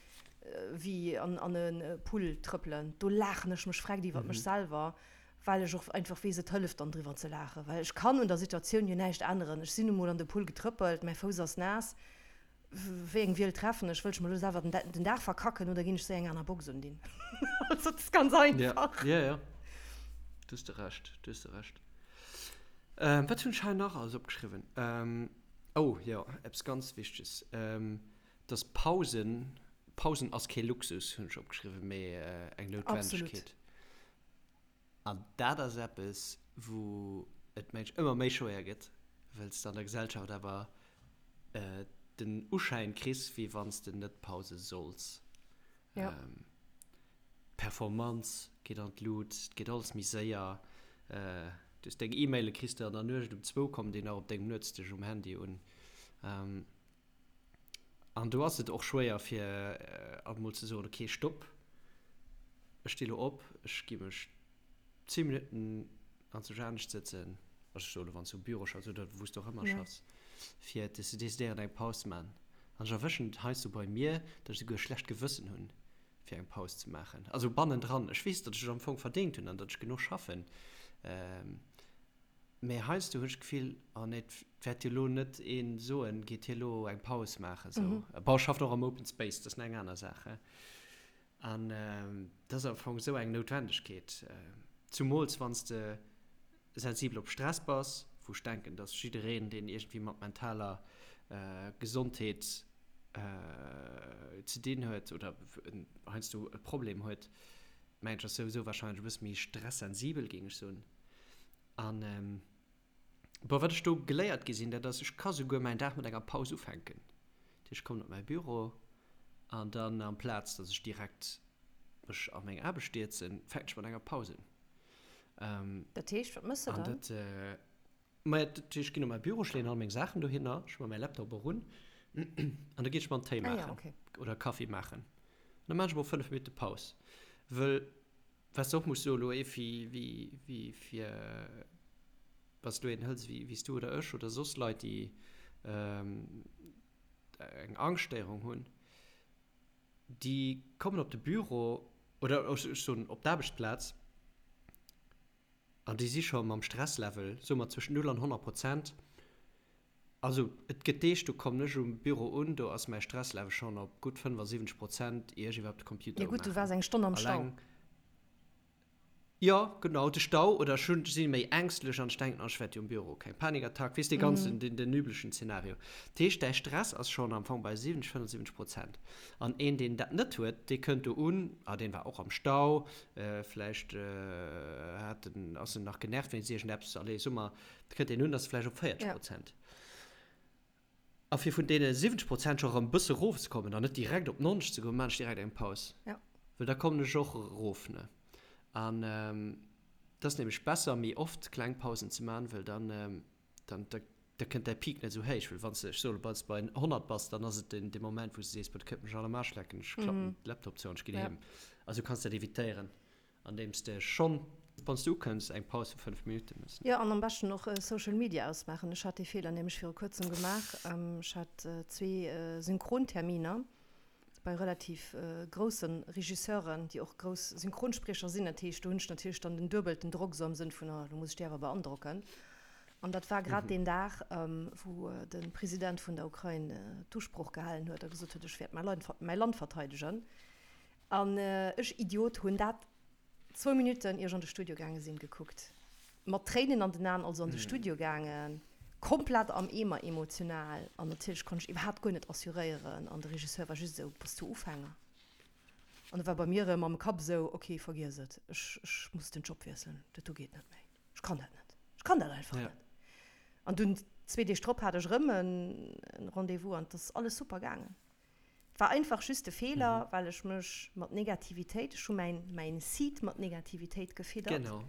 wéi an e Pull trëppelen. Do laachen ech mech vreckt iwwert mech selwer, well ech och einfach weess, et hëlleft dann driwwer ze laachen, well ech kann un der Situatioun jo näischt änneren. Ech sinn nu mol an de Pull getrëppelt, mäi Fouss ass naass, wéi eng Wiel treffen ech? Wëll ech mer elo selwer den Dag verkacken oder ginn ech séier eng aner Box undinn? Also et ass ganz einfach. Jo, jo, do hues de Recht, do hues de Recht. Wat hunn ech hei nach alles opgeschriwwen? Oh jo, eppes ganz Wichteges, dass Pausen, Pausen ass kee Luxus, hunn ech opgeschriwwen, mee eng Noutwendegkeet. Absolut. An dat ass eppes, wou et mensch ëmmer méi schwéier gëtt, well s de an der Gesellschaft awer den Uschäin kriss, wéi wann s de net pause solls. D'Performanz geet an d'Lut, et geet alles méi séier. Du hues deng E-Maile kriss de an der Nuecht um zwou, kommen déi nach op dengem Nuetsdësch um Handy un. An do ass et och schwéier fir alt mol ze soen, okay, stopp, ech sti lo op, ech gi mech 10 Minutten anzwousch anescht sëtzen, also ech soe lo wann s du um Büro schaffs oder wou s du och ëmmer schaffs, fir ze decidéieren eng Paus ze maachen. An ech erwëschen et heiansdo bei mir, datt ech esouguer e schlecht Gewëssen hunn, fir eng Paus ze maachen. Also bannendran, ech weess, datt ech et am Fong verdéngt hunn an datt ech genuch schaffen. Mee heiansdo hunn ech d'Gefill, oh nee, et wäert jo elo net ee soen, geet hie elo eng Paus maachen esou. Bon, ech schaffen och am Open Space, dat ass nach eng aner Saach, he. An dat ass am Fong esou eng Noutwendegkeet. Zumools wann s de sensibel op Stress bass, wou ech denken, dass jiddereen, deen iergendwéi mat mentaler Gesondheet ze dinn huet oder heiansdo e Problem huet, mengen ech, ass souwisou warscheinlech e bësse méi stressensibel, géing ech soen. An bon, wat ech do geléiert gi sinn, dat ass, ech ka souguer mäin Dag mat enger Paus ufänken. Dat heescht, ech kommen op mäi Büro an dann amplaz, dass ech direkt mech a meng Aarbecht stierzen, fänken ech mat enger Paus un. Dat heescht, wat mëss de dann? Dat, maja, dat heescht, ech ginn op mäi Büro, ech leeën all meng Saachen dohinner, ech hu mer mäi Laptop och un an da ginn ech mer en Téi maachen. Ah ja, okay. Oder Kaffi maachen. An da maachen ech mol 5 Minutte Paus. Wëll, wat s de och muss soen, elo ee wéi, wéi fir, wann s du een hëls wéi, wéi s du oder ech oder soss Leit, déi eng Angschtstéierung hunn, déi kommen op de Büro oder ech soen op d'Aarbechtsplaz an déi si scho mam Stresslevel, soe mer, zwëschen 0 an 100 Prozent. Also et gëtt Deeg, do kommen ech um Büro un, do ass mäi Stresslevel schonn op gutt 75 Prozent, ier ech iwwerhaapt de Computer Jo gutt, du waars eng Stonn am Stau. Alleng Jo, genau, de Stau, oder ech hunn, si méi ängstlech an ech denken, oh, ech wäert jo um Büro keng Panikattack, weess, dee ganzen, den, den üblechen Zenario. Dat heescht, däi Stress ass schonn am Fong bei 70, 75 Prozent. An een, deen dat net huet, dee kënnt do un, ah, deen war och am Stau, vläicht hat en, ass en nach genervt wéinst iergendeppes, allez, soe mer, da kënnt deen un, ass vläicht op 40 Prozent. A fir vun deene 70 Prozent scho erëm e bësse erofzekommen an net direkt op 90 ze goen, maan ech direkt eng Paus. Ja. Well da kommen ech och erof, ne? An et ass nämlech besser, méi oft kleng Pausen ze maan, well dann, dann, da, da kënnt däi Peak net esou héich. Well wann s de, ech soe lo, wann s de bei 100 bass, dann ass et den, dee Moment, wou s de sees, Boah, dat kënnt mech all am Aarsch lecken, ech klappen de Laptop zou an ech ginn heem. Also du kanns dat evitéieren. Andeems de schonn, wann s de ukënns, eng Paus vu 5 Minutte mëss. Jo, an am beschten och Social Media ausmaachen. Ech hat dee Feeler nämlech viru kuerzem gemaach. Ech hat zwee Synchronterminer bei relativ grousse Regisseuren, déi och grouss Synchronspriecher sinn. Dat heescht, do hunn ech natierlech dann den duebelten Drock, esou am Sënn vun, oh, elo muss ech déi awer beandrocken. An dat war grad deen Dag, wou de President vun der Ukrain d'Usprooch gehalen huet a gesot huet, ech wäert mäi Land verteidegen. An ech Idiot hunn dat zwou Minutten ier ech an de Studio gaange sinn gekuckt. Mat Tréinen an den Aen also an de Studio gaangen, komplett am Eemer emotional an natierlech konnt ech iwwerhaapt guer net assuréieren an de Regisseur war just esou, Bass du Ufänger? An da war bei mir erëm am Kapp esou, Ok, vergiess et, ech ech muss den Job wiesselen, dat do geet net méi, ech kann dat net, ech kann dat einfach net. An dunn zwee Deeg drop hat ech erëm e Rendez-vous an et ass alles super gaangen. War einfach just e Feeler, well ech mech mat Negativitéit, ech hu mäin, mäin Seed mat Negativitéit gefiddert. Genau,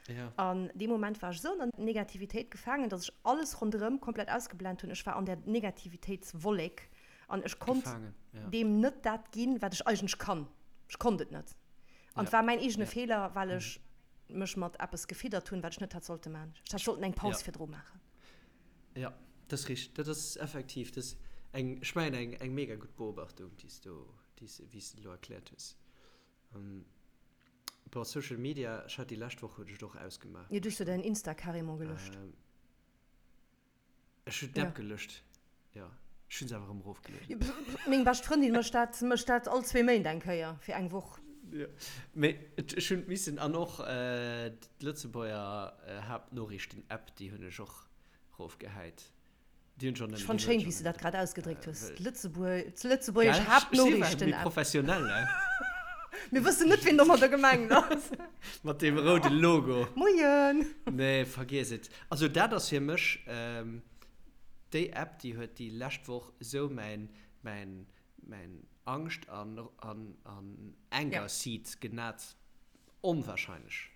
ja. An dee Moment war ech esou an der Negativitéit gefaangen, dass ech alles ronderëm komplett ausgeblent hunn. Ech war an där Negativitéitswollek an ech konnt Gefaangen, ja. deem net dat ginn, wat ech eigentlech kann. Ech konnt et net. An et Ja, war mäin eegene ja. Feeler, well ech mech mat eppes gefiddert hunn, wat ech net hätt sollte maachen. Ech hätt sollten eng Paus Ja. virdru maachen. Jo, dat ass richteg. Dat ass effektiv, dat ass eng, ech mengen eng, eng mega gutt Beobachtung, déi s du, déi s, wéi s de elo erkläert hues. Bon, Social Media, ech hat déi lescht Woch hunn ech et och ausgemaach. Jo, du hues jo däin Insta carrément gelöscht. Ech hunn d'App gelöscht, jo. Ech hunn se awer erëm erofgelueden. Meng bescht Frëndin mécht dat, mécht dat all zwee Méint eng Kéier fir eng Woch. Jo, mee ech hunn missen, an och d'Lëtzebuerger Haaptnoriichten-App, déi hunn ech och erofgehäit. Déi hunn ech och Ech nëmme, fannt déi schéin, huet wéi s schonn de dat grad ausgedréckt hues, wëll. D'Lëtzebuerg, d'lëtzebuergesch Gell? Ech si well méi Haaptnoriichten-App. professionell, ne? Mir wëssen net, wien domadder gemengt ass. Mat deem roude Logo. Moien! Nee, vergiess et. Also dat ass fir mech déi App, déi huet déi lescht Woch esou mäin, mäin, mäin Angscht an an Anger Seed genat, onwahrscheinlech.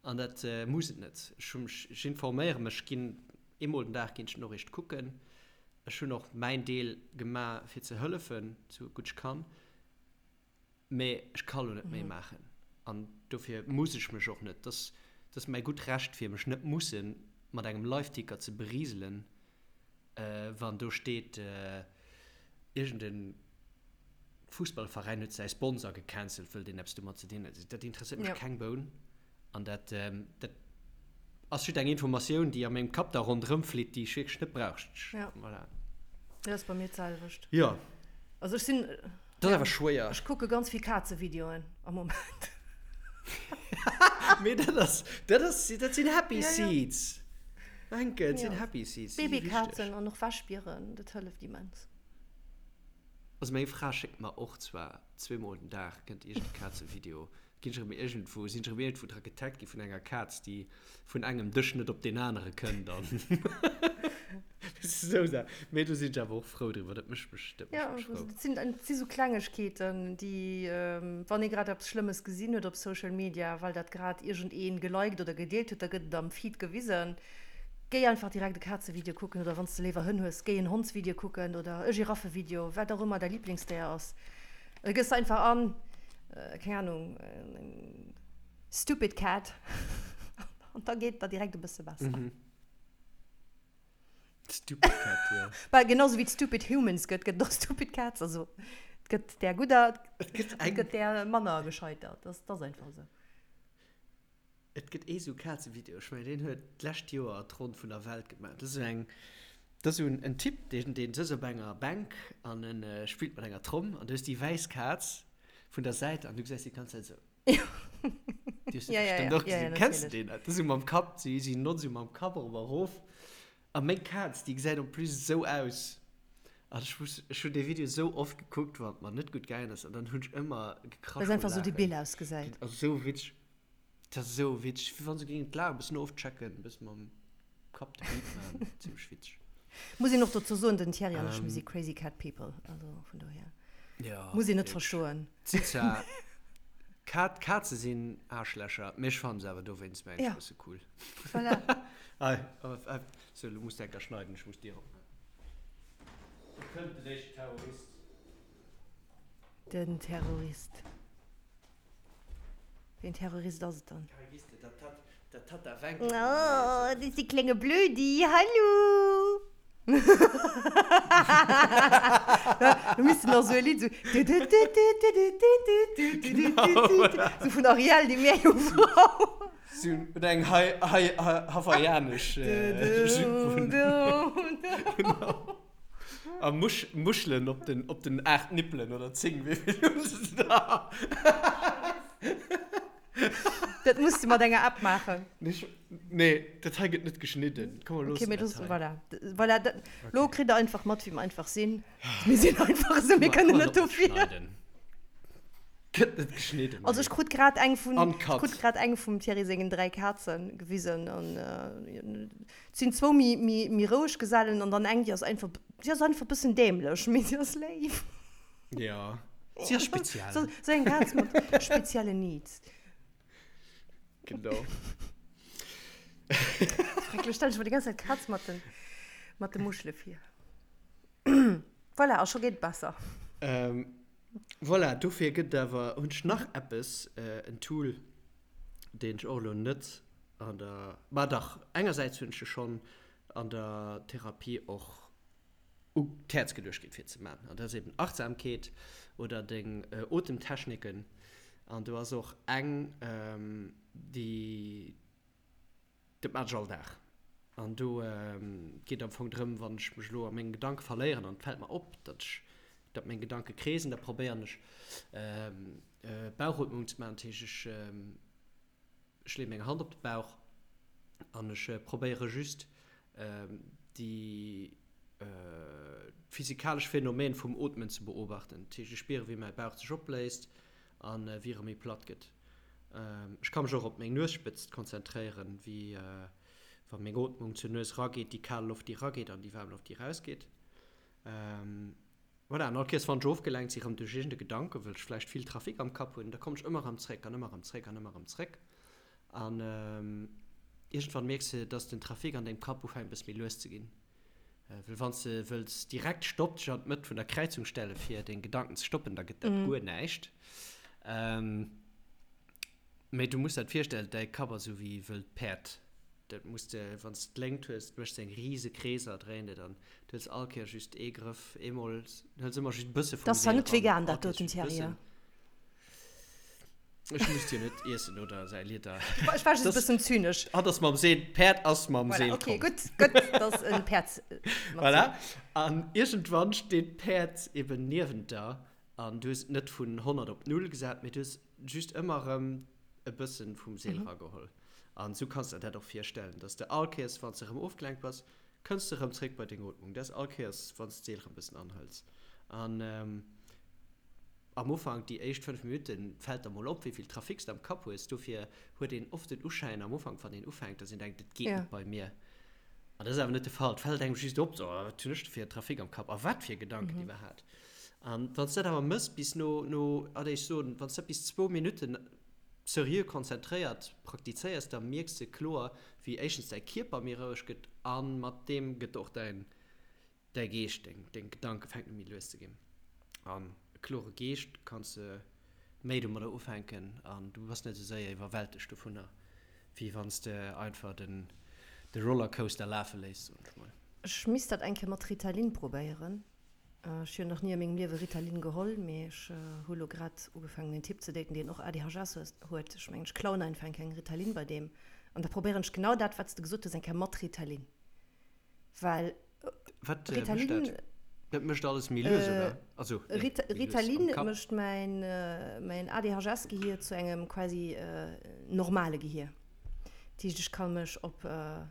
An dat muss et net. Ech hu mech, ech informéiere mech, ginn eemol den Dag ginn ech d'Noriicht kucken. Ech hunn och mäin Deel gemaach fir ze hëllefen, sou gutt ech kann, mee ech ka lo net méi maachen an dofir muss ech mech och net, dass ass mäi gutt Recht fir mech net musse mat engem Liveticker ze beriselen. Wann do steet, iergend e Fussballveräin huet säi Sponsor gecancelt, wëll deen eppes domat ze dinn huet, dat interesséiert mech keng Boun. An dat, dat ass just eng Informatioun, déi a mengem Kapp da ronderëm flitt, déi ech wierklech net brauch. Voilà. Dat ass bei mir d'selwecht. Jo. Also ech sinn. Dat ass awer schwéier. Ech kucke ganz vill Kazevideoen am Moment. Mee dat ass, dat ass, dat sinn Happy Seeds. Wencke, et sinn Happy Seeds. Babykazen an och Wäschbieren, dat hëlleft immens. Also meng Fra schéckt mer och zwar zweemol den Dag kënnt iergend e Kazevideo, ginn ech erëm iergendwou, sinn ech erëm iergendwou dra getaggt gi vun enger Kaz, déi vun engem Dësch net op deen anere kënnt an esou Saachen. Mee do sinn ech awer och frou driwwer, dat mécht mech, dat mécht mech frou. Jo, et sinn, et si sou Klengegkeeten, déi, wann ee grad eppes Schlëmmes gesinn huet op Social Media, well dat grad iergendee geliked oder gedeelt huet, da gëtt et am Feed gewisen. Géi einfach direkt e Kazevideo kucken oder wann s de léiwer Hënn hues, géi en Hondsvideo kucken oder e Giraffevideo, wat och ëmmer däi Liblingsdéier ass. Da gëss de einfach an, keng Anung, stupid cat an da geet et der direkt e bësse besser. Stupid cat, jo. Well genau sou wéi et stupid humans gëtt, gëtt et och stupid cats. Also et gëtt där gudder, Et gëtt et gëtt där manner gescheiter. Dat ass einfach esou. Et gëtt ee sou Kazevideo, ech mengen deen huet d'lescht Joer d'Ronn vun der Welt gemaach. Dat ass esou eng, dat ass esou en Typ, deen deen sëtzt op enger Bänk an en spillt mat enger Tromm an du hues déi wäiss Kaz vun der Säit an du gesäis déi ganz Zäit esou. Déi hues du bestëmmt och gesinn. Kenns de deen? Dat ass esou mam Kapp, si si notzt esou mam Kapp erop a erof. A meng Kaz, déi gesäit en plus esou aus. An ech muss, ech hunn dee Video esou oft gekuckt, wann et mer net gutt gaangen ass an dann hunn ech ëmmer gekrasch Well se vu einfach esou Laachen. debil ausgesäit. Dat ass esou witzeg. Dat ass esou witzeg, wéi wann se géingen d'Lag e bëssen ofchecken, e bëssen mam Kapp de Beat maachen. Zimmlech witzeg. Muss een och dozou soen, den Thierry an ech, mir si crazy cat people, also vun dohier Ja, muss een net wierklech. verstoen. D'si zwar, Kat, Kaze sinn Aarschlächer, mee ech fannen se awer dowéinst mengen ech Ja. e bësse cool. Voilà. Ei, ei, sou, lo muss de enker schneiden, ech muss d'Dier opmaachen. Do kënnt den éischten Terrorist. Den Terrorist. Ween Terrorist ass et dann? Oh, dat ass de klenge Blödi, hallo! Do misst en nach sou e Lidd sou sou vun Ariel, déi Meerjungfrau. Sou oder eng hawaiianesch Jupe. Genau. A Musch Muschelen op den, op den 8 Nippelen oder 10, wéi vill hunn se da? Dat muss de mat enger App maachen. Nee, dat hei gëtt net geschnidden. Komm, mer Okay, loossen mir dat loossen, hei. voilà. Voilà, dat, lo kritt der einfach mat, wéi mer einfach sinn. Mir sinn einfach esou, mir kënnen net dofir. Gëtt net geschnidden. Also ech krut grad eng vun, ech Uncut. krut grad eng vum Thierry sengen 3 Kazen gewisen an Et sinn zwou méi, méi, méi roueg Gesellen an dann eng, déi ass einfach, déi ass einfach e bëssen dämlech, mee si ass léif. Ja, si ass speziell. Sou, sou eng Kaz mat speziellen Needs. Genau. Schrecklech, stell ech mer déi ganz Zäit d'Kaz mat den, mat de Muschele vir. Voilà, a scho geet et besser. Ähm, voilà, dofir gëtt et awer, hunn ech nach eppes, en Tool, deen ech och elo net An der, ma dach, engersäits hunn ech e schonn an der Therapie och u d'Häerz geluecht ginn, fir ze maachen. An dat ass eben Achtsamkeet oder deng Otemtechniken. An do ass och eng, déi, dat maachen ech all Dag. An do geet am Fong drëm, wann ech mech elo a menge Gedanke verléieren an et fält mer op, datt ech, datt meng Gedanke kreesen, da probéieren ech Bauchootmung ze maachen. Dat heescht, ech. Ech leeë meng Hand op de Bauch an ech probéiere just déi physikalesch Phänomen vum Ootmen ze beobachten. Dat heescht, ech spiere wéi mäi Bauch sech opbléist a wéi erëm méi platt gëtt. Ech ka mech och op meng Nuesspëtzt konzentréieren, wéi wa meng Ootmung zur Nues rageet, déi kal Loft déi rageet an déi waarm Loft déi rausgeet. Voilà, an all Kéiers wann ech ofgelenkt si rëm duerch iergend e Gedanken, wëll ech vläicht vill Trafic am Kapp hunn, da kommen ech ëmmer erëm zréck an ëmmer erëm zréck an ëmmer erëm zréck. An iergendwann mierks de, dass den Trafic an dengem Kapp ufänkt e bësse méi lues ze ginn. Well wann s de wëlls direkt Stopp dech an d'Mëtt vun der Kräizung stelle fir deng Gedanken ze stoppen, da gëtt dat guer näischt. Mee du muss der et virstellen, däi Kapp ass esou wéi e wëllt Päerd. Dat muss de, wann s de d'Léngt hues, méchs de eng rise Kreeser, dréint et an du hëls all Kéier just ee Grëff, eemol, hëls ëmmer just e bësse Dat vum ass zwar Seel net ran, vegan, all dat Kéiers doten, just e Thierry, bëssen. Ech muss dir net iessen oder säi Lieder. Ech war just e bëssen zynesch. Hatt ass mam Seel, d'Päerd ass mam Voilà, Seel okay, komm. gutt, gutt, dass en Päerd mat Seel. Voilà, an iergendwann steet d'Päerd eben niewent der an du hues et net vun 100 op null gesat, mee du hues just ëmmer erëm. e bëssen vum Seel erageholl. An esou kanns de der dat och virstellen, dass de all Kéiers, wann s de erëm ofgelenkt bass, kënns de erëm zréck bei deng Ootmung. Dat ass all Kéiers, wann s de d'Seel erëm bëssen anhëls. An am Ufank, déi éischt 5 Minutten, fält der mol op, wéi vill Trafic s de am Kapp hues. Dofir huet een oft den Uschäin am Ufank, wann een ufänkt, dass een denkt, et geet net bei mir. An dat ass awer net de Fall. Et fält engem just op, so, wat hunn ech do fir Trafic am Kapp a wat fir Gedanken iwwerhaapt. An wann s de dat awer mëss bis no, no, allez ech soen, wann s de dat bis zwou Minutten seriö konzentréiert praktizéiers, da mierks de kloer, wéi éischtens däi Kierper méi roueg gëtt a mat deem gëtt och däin, däi Geescht, deng, deng Gedanke fänken u méi lues ze ginn. An e klore Geescht kanns de méi domadder ufänken an du bass net esou séier iwwerwältegt dovunner, wéi wann s de einfach den, de Rollercoaster lafe léiss, soen ech mol. Ech misst dat eng Kéier mat Ritalin probéieren. Ech hunn nach ni a mengem Liewe Ritalin geholl, mee ech hu lo grad ugefaangen en Typ ze daten, deen och ADHS huet. Ech mengen, ech klauen einfach eng Kéier eng Ritalin bei deem an da probéieren ech genau dat, wat s de gesot hues, eng Kéier mat Ritalin. Well Wat mécht Ritalin, dat? Dat mécht alles méi lues, oder? Also, nee, Rit méi lues am Ritalin Kapp. mécht mäin, mäin ADHS-Gehier zu engem quasi normale Gehier. Dat heescht, ech ka mech op. Ech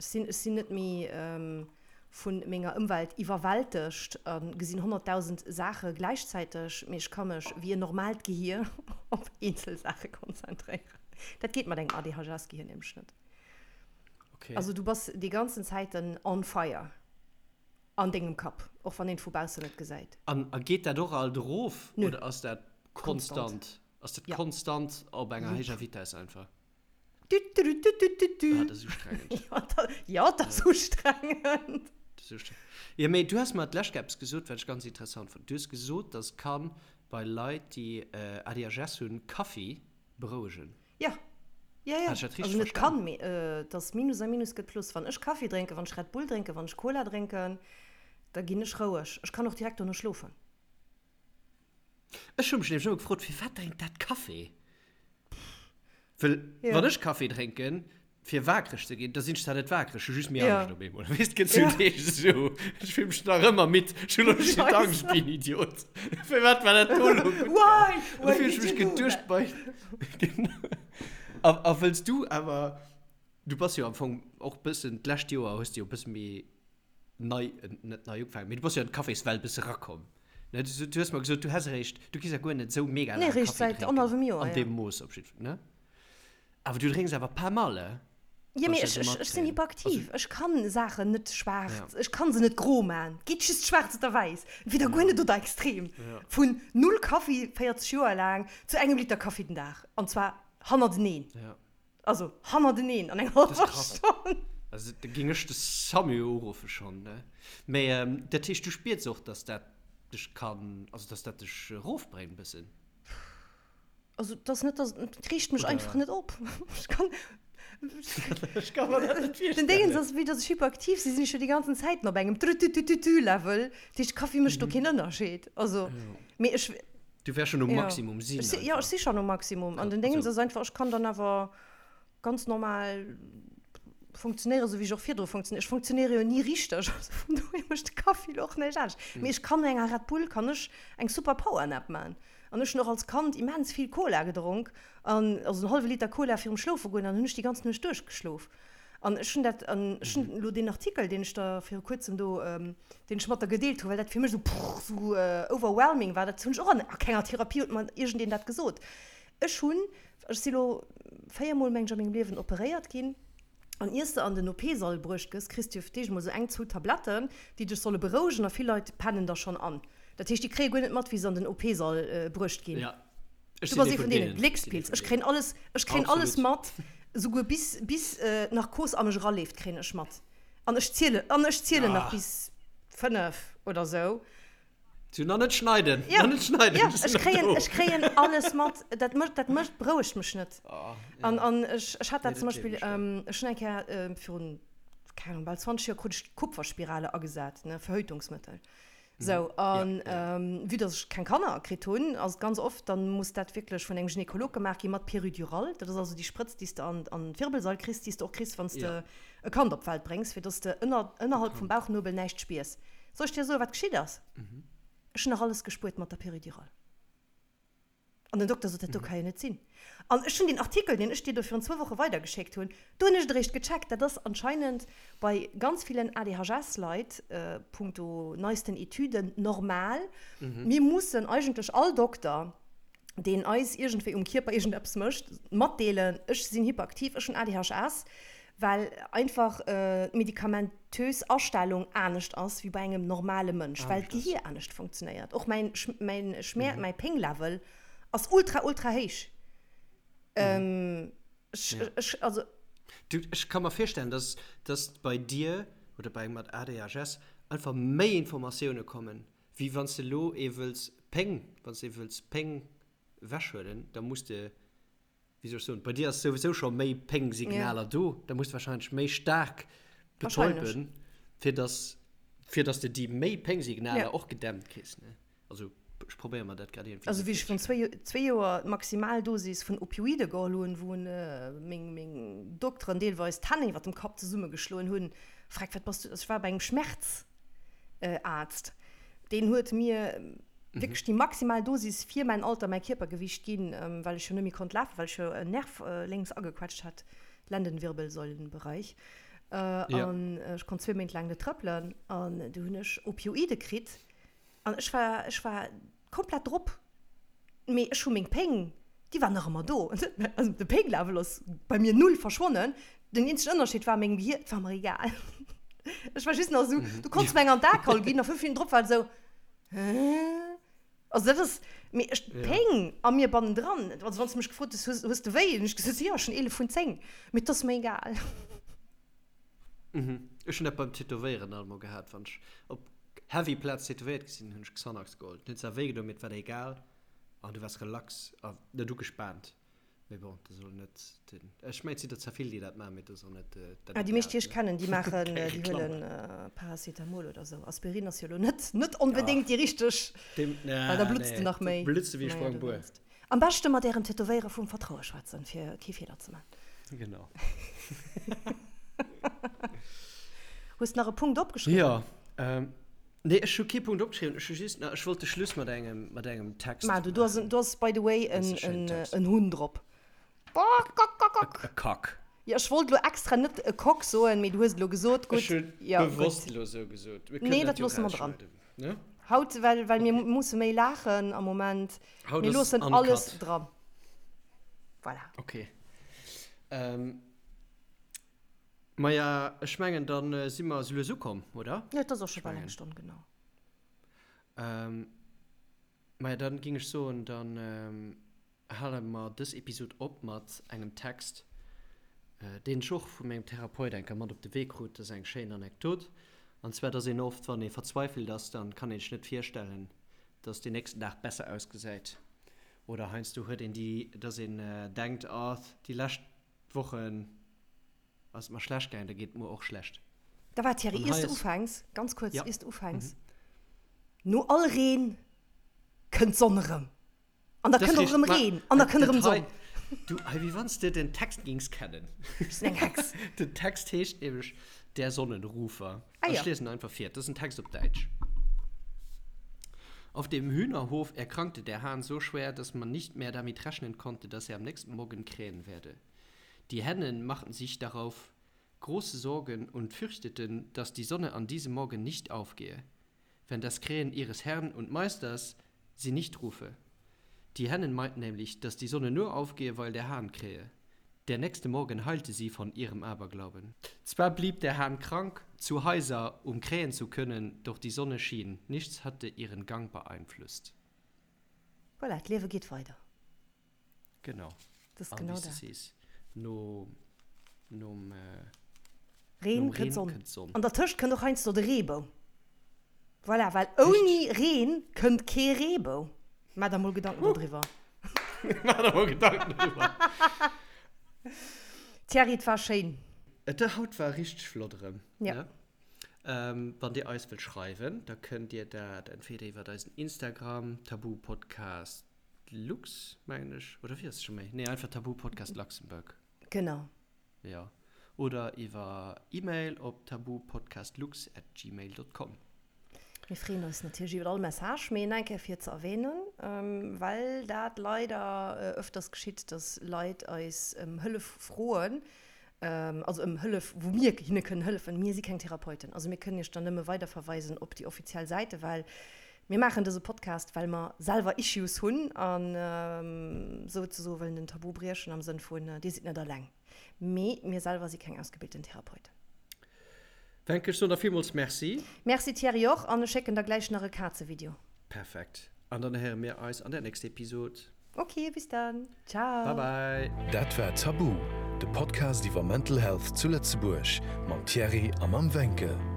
sinn, ech sinn net méi vu menger Ëmwelt iwwerwältegt a gesinn 100.000 Saache gläichzäiteg, mee ech ka mech wéi en normaalt Gehier op eenzel Saache konzentréieren. Dat geet mat engem ADHS-Gehier nämlech net. Okay. Also du bass déi ganzen Zäiten on fire an dengem Kapp, och wann een et vu baussen net gesäit. An a geet dat och alt erof Nö. oder ass dat Konstant. konstant? Ass dat Ja. konstant op enger Jupp. héijer Vitesse einfach? Tütütütütü. Ah, dat ass ustrengend. Ja, dat, ja, dat ass ustrengend. Dat ass ustrengend. Jo, mee du has mer d'lescht Kéier eppes gesot, wat ech ganz interessant fonnt. Du hues gesot, dass kann bei Leit, déi ADHS hunn, Kaffi berouegen. Ja. Ja, ja. Hat ech dat richteg Also net verstan? kann, mee et ass Minus a Minus gëtt Plus. Wann ech Kaffi drénken, wann ech Red Bull drénken, wann ech Cola drénken, da ginn ech roueg. Ech kann och direkt dono schlofen. Ech hu mech nämlech ëmmer gefrot, firwat drénkt dat Kaffi? Well Ja. wann ech Kaffi drénken, fir waakreg ze ginn, da sinn ech zwar net waakreg, ech hu just méi Ja. Angscht op eemol. Weess, et gëtt sou Ja. Deeg esou, ech fill mech nach ëmmer midd, ech hunn elo just Scheisse. Angscht wéi en Idiot. Firwat war dat do elo gutt gaang? Why? An da Why fill ech did mech you do geduecht that? bei, genau. A, a wëlls du awer, du bass jo am Fong och bëssen, d'lescht Joer hues de jo e bësse méi nei, net nei ugefaangen, mee du bass jo an d'Caféswelt bësse rakomm, ne? Du, du hues mer gesot, du häss eréischt, du gees ja guer net esou mega Nee, laang eréischt Café säit drénken, annerhallwem Joer, an ja. deem Mooss op jiddwer, ne? Awer du drénks awer pas mal, eh? Jo, Wann mee ech dat ech, esou ech, ech sinn matkréien. hyperaktiv. Also, Ech kann Saachen net schwaarz, ja. ech kann se net gro man. Et geet just schwaarz oder wäiss. Entweder guer net oder extrem. Ja. Vun null Kaffi 40 Joer laang zu engem Liter Kaffi den Dag. An zwar hannerteneen. Ja. Also hannerteneen an enger Dat ass hallwer krass. Stonn. Also da géing ech de Samu uruffe schonn, ne? Mee dat heescht, du spiers och, dass dat dech kann, also dass dat dech erofbréngt bëssen? Also et ass net, dass, et reegt mech einfach Oder? net op. Ech kann, Ech ka mer dat net den Déngens virstellen. ass, vue dass ech hyperaktiv sinn, sinn ech jo déi ganzen Zäiten op engem Trütütütütü-Level. Dat heescht, Kaffi mécht do keen Ënnerscheed. Also, mee ech. Du wärs schon um Ja. Maximum sinn Ech si, ja, ech si schon um Maximum. An den Déngens ass einfach, ech kann dann awer ganz normal funktionéieren, esou wéi ech och virdru funktionéiert. Ech funktionéiere jo ni richteg, also vun dohier mécht de Kaffi lo och näischt anescht. Mee ech kann no enger Red Bull kann ech eng super Powernap man. An ech hunn och als Kand immens vill Cola gedronk, an also en hallwe Liter Cola virum Schlofe goen, an hunn ech déi ganz Nuecht duerchgeschlof. An ech hunn dat, an ech hunn elo deen Artikel, deen ech der viru kuerzem do, deen ech mat der gedeelt hunn, well dat fir mech esou prrr, esou overwhelming war, dat hunn ech och an a kenger Therapie huet mer iergendeen dat gesot. Ech hunn, ech si lo véiermol, meng ech, a mengem Liewen operéiert ginn, an iers de an den OP-Sall bruecht gëss, kriss de jo fir d'éischt emol esou eng, zwou Tabletten, déi dech solle berouegen, a vill Leit pennen da schonn an. Dat heescht, déi kréie guer net mat, wéi se an den OP-Sall bruecht ginn. Ech Du sinn bass ee ee vun vun deenen. deenen. Ech sinn ee Gléckspilz. vun Ech kréien deenen. alles, ech kréien alles Absolut. mat, souguer bis, bis d'Narkos a mech eraleeft, kréien ech mat. An ech zielen, an ech zielen nach Ah. bis 5 oder sou. Zu nach net schneiden, Ja, nach net schneiden, ja, ech sinn ech nach kréien, do. ech kréien alles mat. Dat mécht, dat mécht, berouegt mech net. Ah, An, ja. an ech, ech hat Nee, dat zum dat gleewen Beispill, ech der. ech hunn eng Kéier virun, keng Ahnung, bal 20 Joer krut ech d'Kupferspirale agesat, ne, Verhütungsmëttel. Sou, an vue dass ech keng Kanner kritt hunn, ass et ganz oft, dann muss dat wierklech vun engem Gynekolog gemaach gi mat Peridural. Dat ass also déi Sprëtz, déi s de an an d'Wirbelsail kriss, déi s de och kriss, wann s de e Kand op d'Welt bréngs, fir dass de ënner ënnerhalb vum Bauchnuebel näischt spiers. Soll ech dir soen, wat geschitt ass? Ech hunn nach alles gespuert mat der Peridural. An den Dokter sot, dat do ka jo net sinn. An ech hunn deen Artikel, deen ech dir do virun zwou Woche weidergeschéckt hunn, do hunn ech et eréischt gecheckt, dat ass anscheinend bei ganz villen ADHS-Leit, punkto neisten Etüden, normal. Mir mussen eigentlech all Dokter, deen eis iergendwéi um Kierper iergendeppes mécht, matdeelen, ech sinn hyperaktiv, ech hunn ADHS, well einfach d'medikamentös Astellung anescht ass wéi bei engem normale Mënsch, well d'Gehier anescht funktionéiert. Och mäin mäin Schmäer, mäi Pénglevel ass ultra, ultra héich. Ech, ech, also. Du, ech ka mer virstellen, dass, dass bei dir oder bei engem mat ADHS einfach méi Informatioune kommen, wéi wann s de elo ee wëlls Péng, wann s de ee wëlls Péng ewechhuelen, da muss de wéi soll ech soen, bei dir ass souwisou scho méi Péngsignaler do, da muss de wahrscheinlech méi staark betäuben, fir dass, fir dass de déi méi Péngsignaler och gedämmt kriss, ne? Also ech probéiere mer dat grad iergendwéi Also wéi ech virun zwéi, zwéi Joer d'Maximaldosis vun Opioide geholl hunn, wou meng, meng Dokteren deelweis d'Hänn iwwer dem Kapp zesummegeschloen hunn, Freck, wat bass du, also ech war bei engem Schmerz. Arzt. Deen huet mir wierklech déi maximal Dosis fir mäin Alter, mäi Kierpergewicht ginn, well ech jo net méi konnt lafen, well ech jo en Nerv lénks agequetscht hat, Lendenwirbelsäulenbereich. An ech konnt zwee Méint laang net trëppelen. An du hunn ech Opioide kritt an ech war, ech war komplett drop, mee ech hu meng Péng, déi war nach ëmmer do. Also de Pénglevel ass bei mir null verschwonnen. Den eenzegen Ënnerscheed war, mengem Gehier, et war mer egal. Ech war just nach esou, du konns mer eng an d'Akaul ginn a 5 Minutten drop war et esou, hä? Also dat ass, mee ech, d'Péng a mir bannendran, also wann s de mech gefrot hues, hues, hues de wéi? Hunn ech gesot, jo, ech hunn 11 vun 10, mee et ass mer egal. Ech hunn dat beim Tätowéieren alt mol gehat, wann ech op heavy Plaz tätowéiert gi sinn, hunn ech Xanax geholl. Et huet zwar wéi gedoen, mee et war der egal an du waars relax a net ugespaant. Mee bon, dat ass elo net den, ech mengen et sinn der zwar vill, déi dat maachen, mee dat ass och net dat Ah, déi meescht, déi ech kennen, déi maachen, déi huelen Paracetamol oder sou. Aspirin ass jo elo net, net onbedéngt déi richteg, well da blutts de nach méi. Blutts de wéi e Sprangbuer. Am beschte mat ärem Tätowéierer vum Vertraue schwätzen, fir kee Feeler ze man. Genau. Hues de nach e Punkt opgeschriwwen? Jo. Nee, ech hu kee Punkt opgeschriwwen. Ech hu just nach, ech wollt de Schluss mat engem, mat engem Text Ma du, do ass, do ass by the way en, en Hunn drop. E Kack. Jo, ech wollt elo extra net e Cock soen, mee du hues et elo gesot. Gutt. Ech hu bewosst elo esou gesot. Nee, dat loosse mer dran. Haut, well, well mir musse méi laachen am Moment. Haut Mir ass loossen uncut. alles dran. Voilà. Ok. Ähm, maja, ech mengen, dann äh, si mer sou lues ukomm, oder? Jo, et ass och scho bal eng Stonn, genau. Ähm, maja, dann ging ech soen, dann ähm, hale mer dës Episod op mat engem Text, äh, deen ech och vu mengem Therapeut eng Kéier mat op de Wee krut. Dat ass eng schéin Anekdot. An zwar, dass een oft, wann ee verzweifelt ass, dann kann ee sech net virstellen, dass deen nächsten Dag besser ausgesäit oder heiansdo huet een déi, dass een denkt, oh déi lescht Wochen ass et mer schlecht gaangen, da geet et muer och schlecht. Da war Thierry, iers de ufänks, ganz kuerz, iers de ufänks, no all Reen kënnt d'Sonn erëm. An da kënnt och erëm Reen an da kënnt erëm d'Sonn. Du, hei, wéi wann s de den Text gings kennen. Ech sinn eng Hex. Den Text heescht nämlech Der Sonnenrufer. Ah jo. Ech liesen einfach vir. Dat ass en Text op Däitsch. Auf dem Hühnerhof erkrankte der Hahn so schwer, dass man nicht mehr damit rechnen konnte, dass er am nächsten Morgen krähen werde. Die Hennen machten sich darauf große Sorgen und fürchteten, dass die Sonne an diesem Morgen nicht aufgehe, wenn das Krähen ihres Herrn und Meisters sie nicht rufe. Die Hennen meinten nämlich, dass die Sonne nur aufgehe, weil der Hahn krähe. Der nächste Morgen heilte sie von ihrem Aberglauben. Zwar blieb der Hahn krank, zu heiser, um krähen zu können, doch die Sonne schien, nichts hatte ihren Gang beeinflusst. Voilà, d'Liewe geet weider. Genau. Dat ass genau dat. Sees, no, nom, Reen nom kënnt Reen d'Sonn. kënnt d'Sonn. An dertëscht kënnt och heiansdo de Reebou. Voilà, well ouni Reen kënnt kee Reebou. Maach der mol Gedanken dodriwwer. Maach der mol Gedanken dodriwwer. Thierry, et war schéin. Et haut war richteg flott erëm. Ja. Ne? Wann dir eis wëllt schreiwen, da kënnt dir dat entweder iwwert eisen Instagram, Tabu Podcast Lux, mengen ech, oder wéi ass et scho méi? Nee, einfach Tabu Podcast Luxembourg. Genau. Jo. Oder iwwer E-Mail op tabupodcastlux at gmail dot com. Mir freeën eis natierlech iwwer all Message, mee eng Kéier fir ze erwähnen. well dat leider ëfters geschitt, dass Leit eis ëm Hëllef froen, also ëm Hëllef, wou mir hinne kënnen hëllefen. Mir si keng Therapeuten, also mir kënnen iech dann nëmme weiderverweisen op déi offiziell Säite, well mir maachen dëse Podcast, well mer selwer Issues hunn an souzesoe wëllen den Tabu briechen am Sënn vun, Dir sidd net alleng. Mee mir selwer si keng ausgebilten Therapeuten. Wencke, ech soen der villmools Merci. Merci Thierry och an ech schécken der gläich nach e Kazevideo. Perfekt. An dann héiere mir eis an der nächster Episod. Ok, bis dann. Ciao. Bye bye. Dat war Tabu, de Podcast iwwer Mental Health zu Lëtzebuerg mam Thierry a mam Wencke.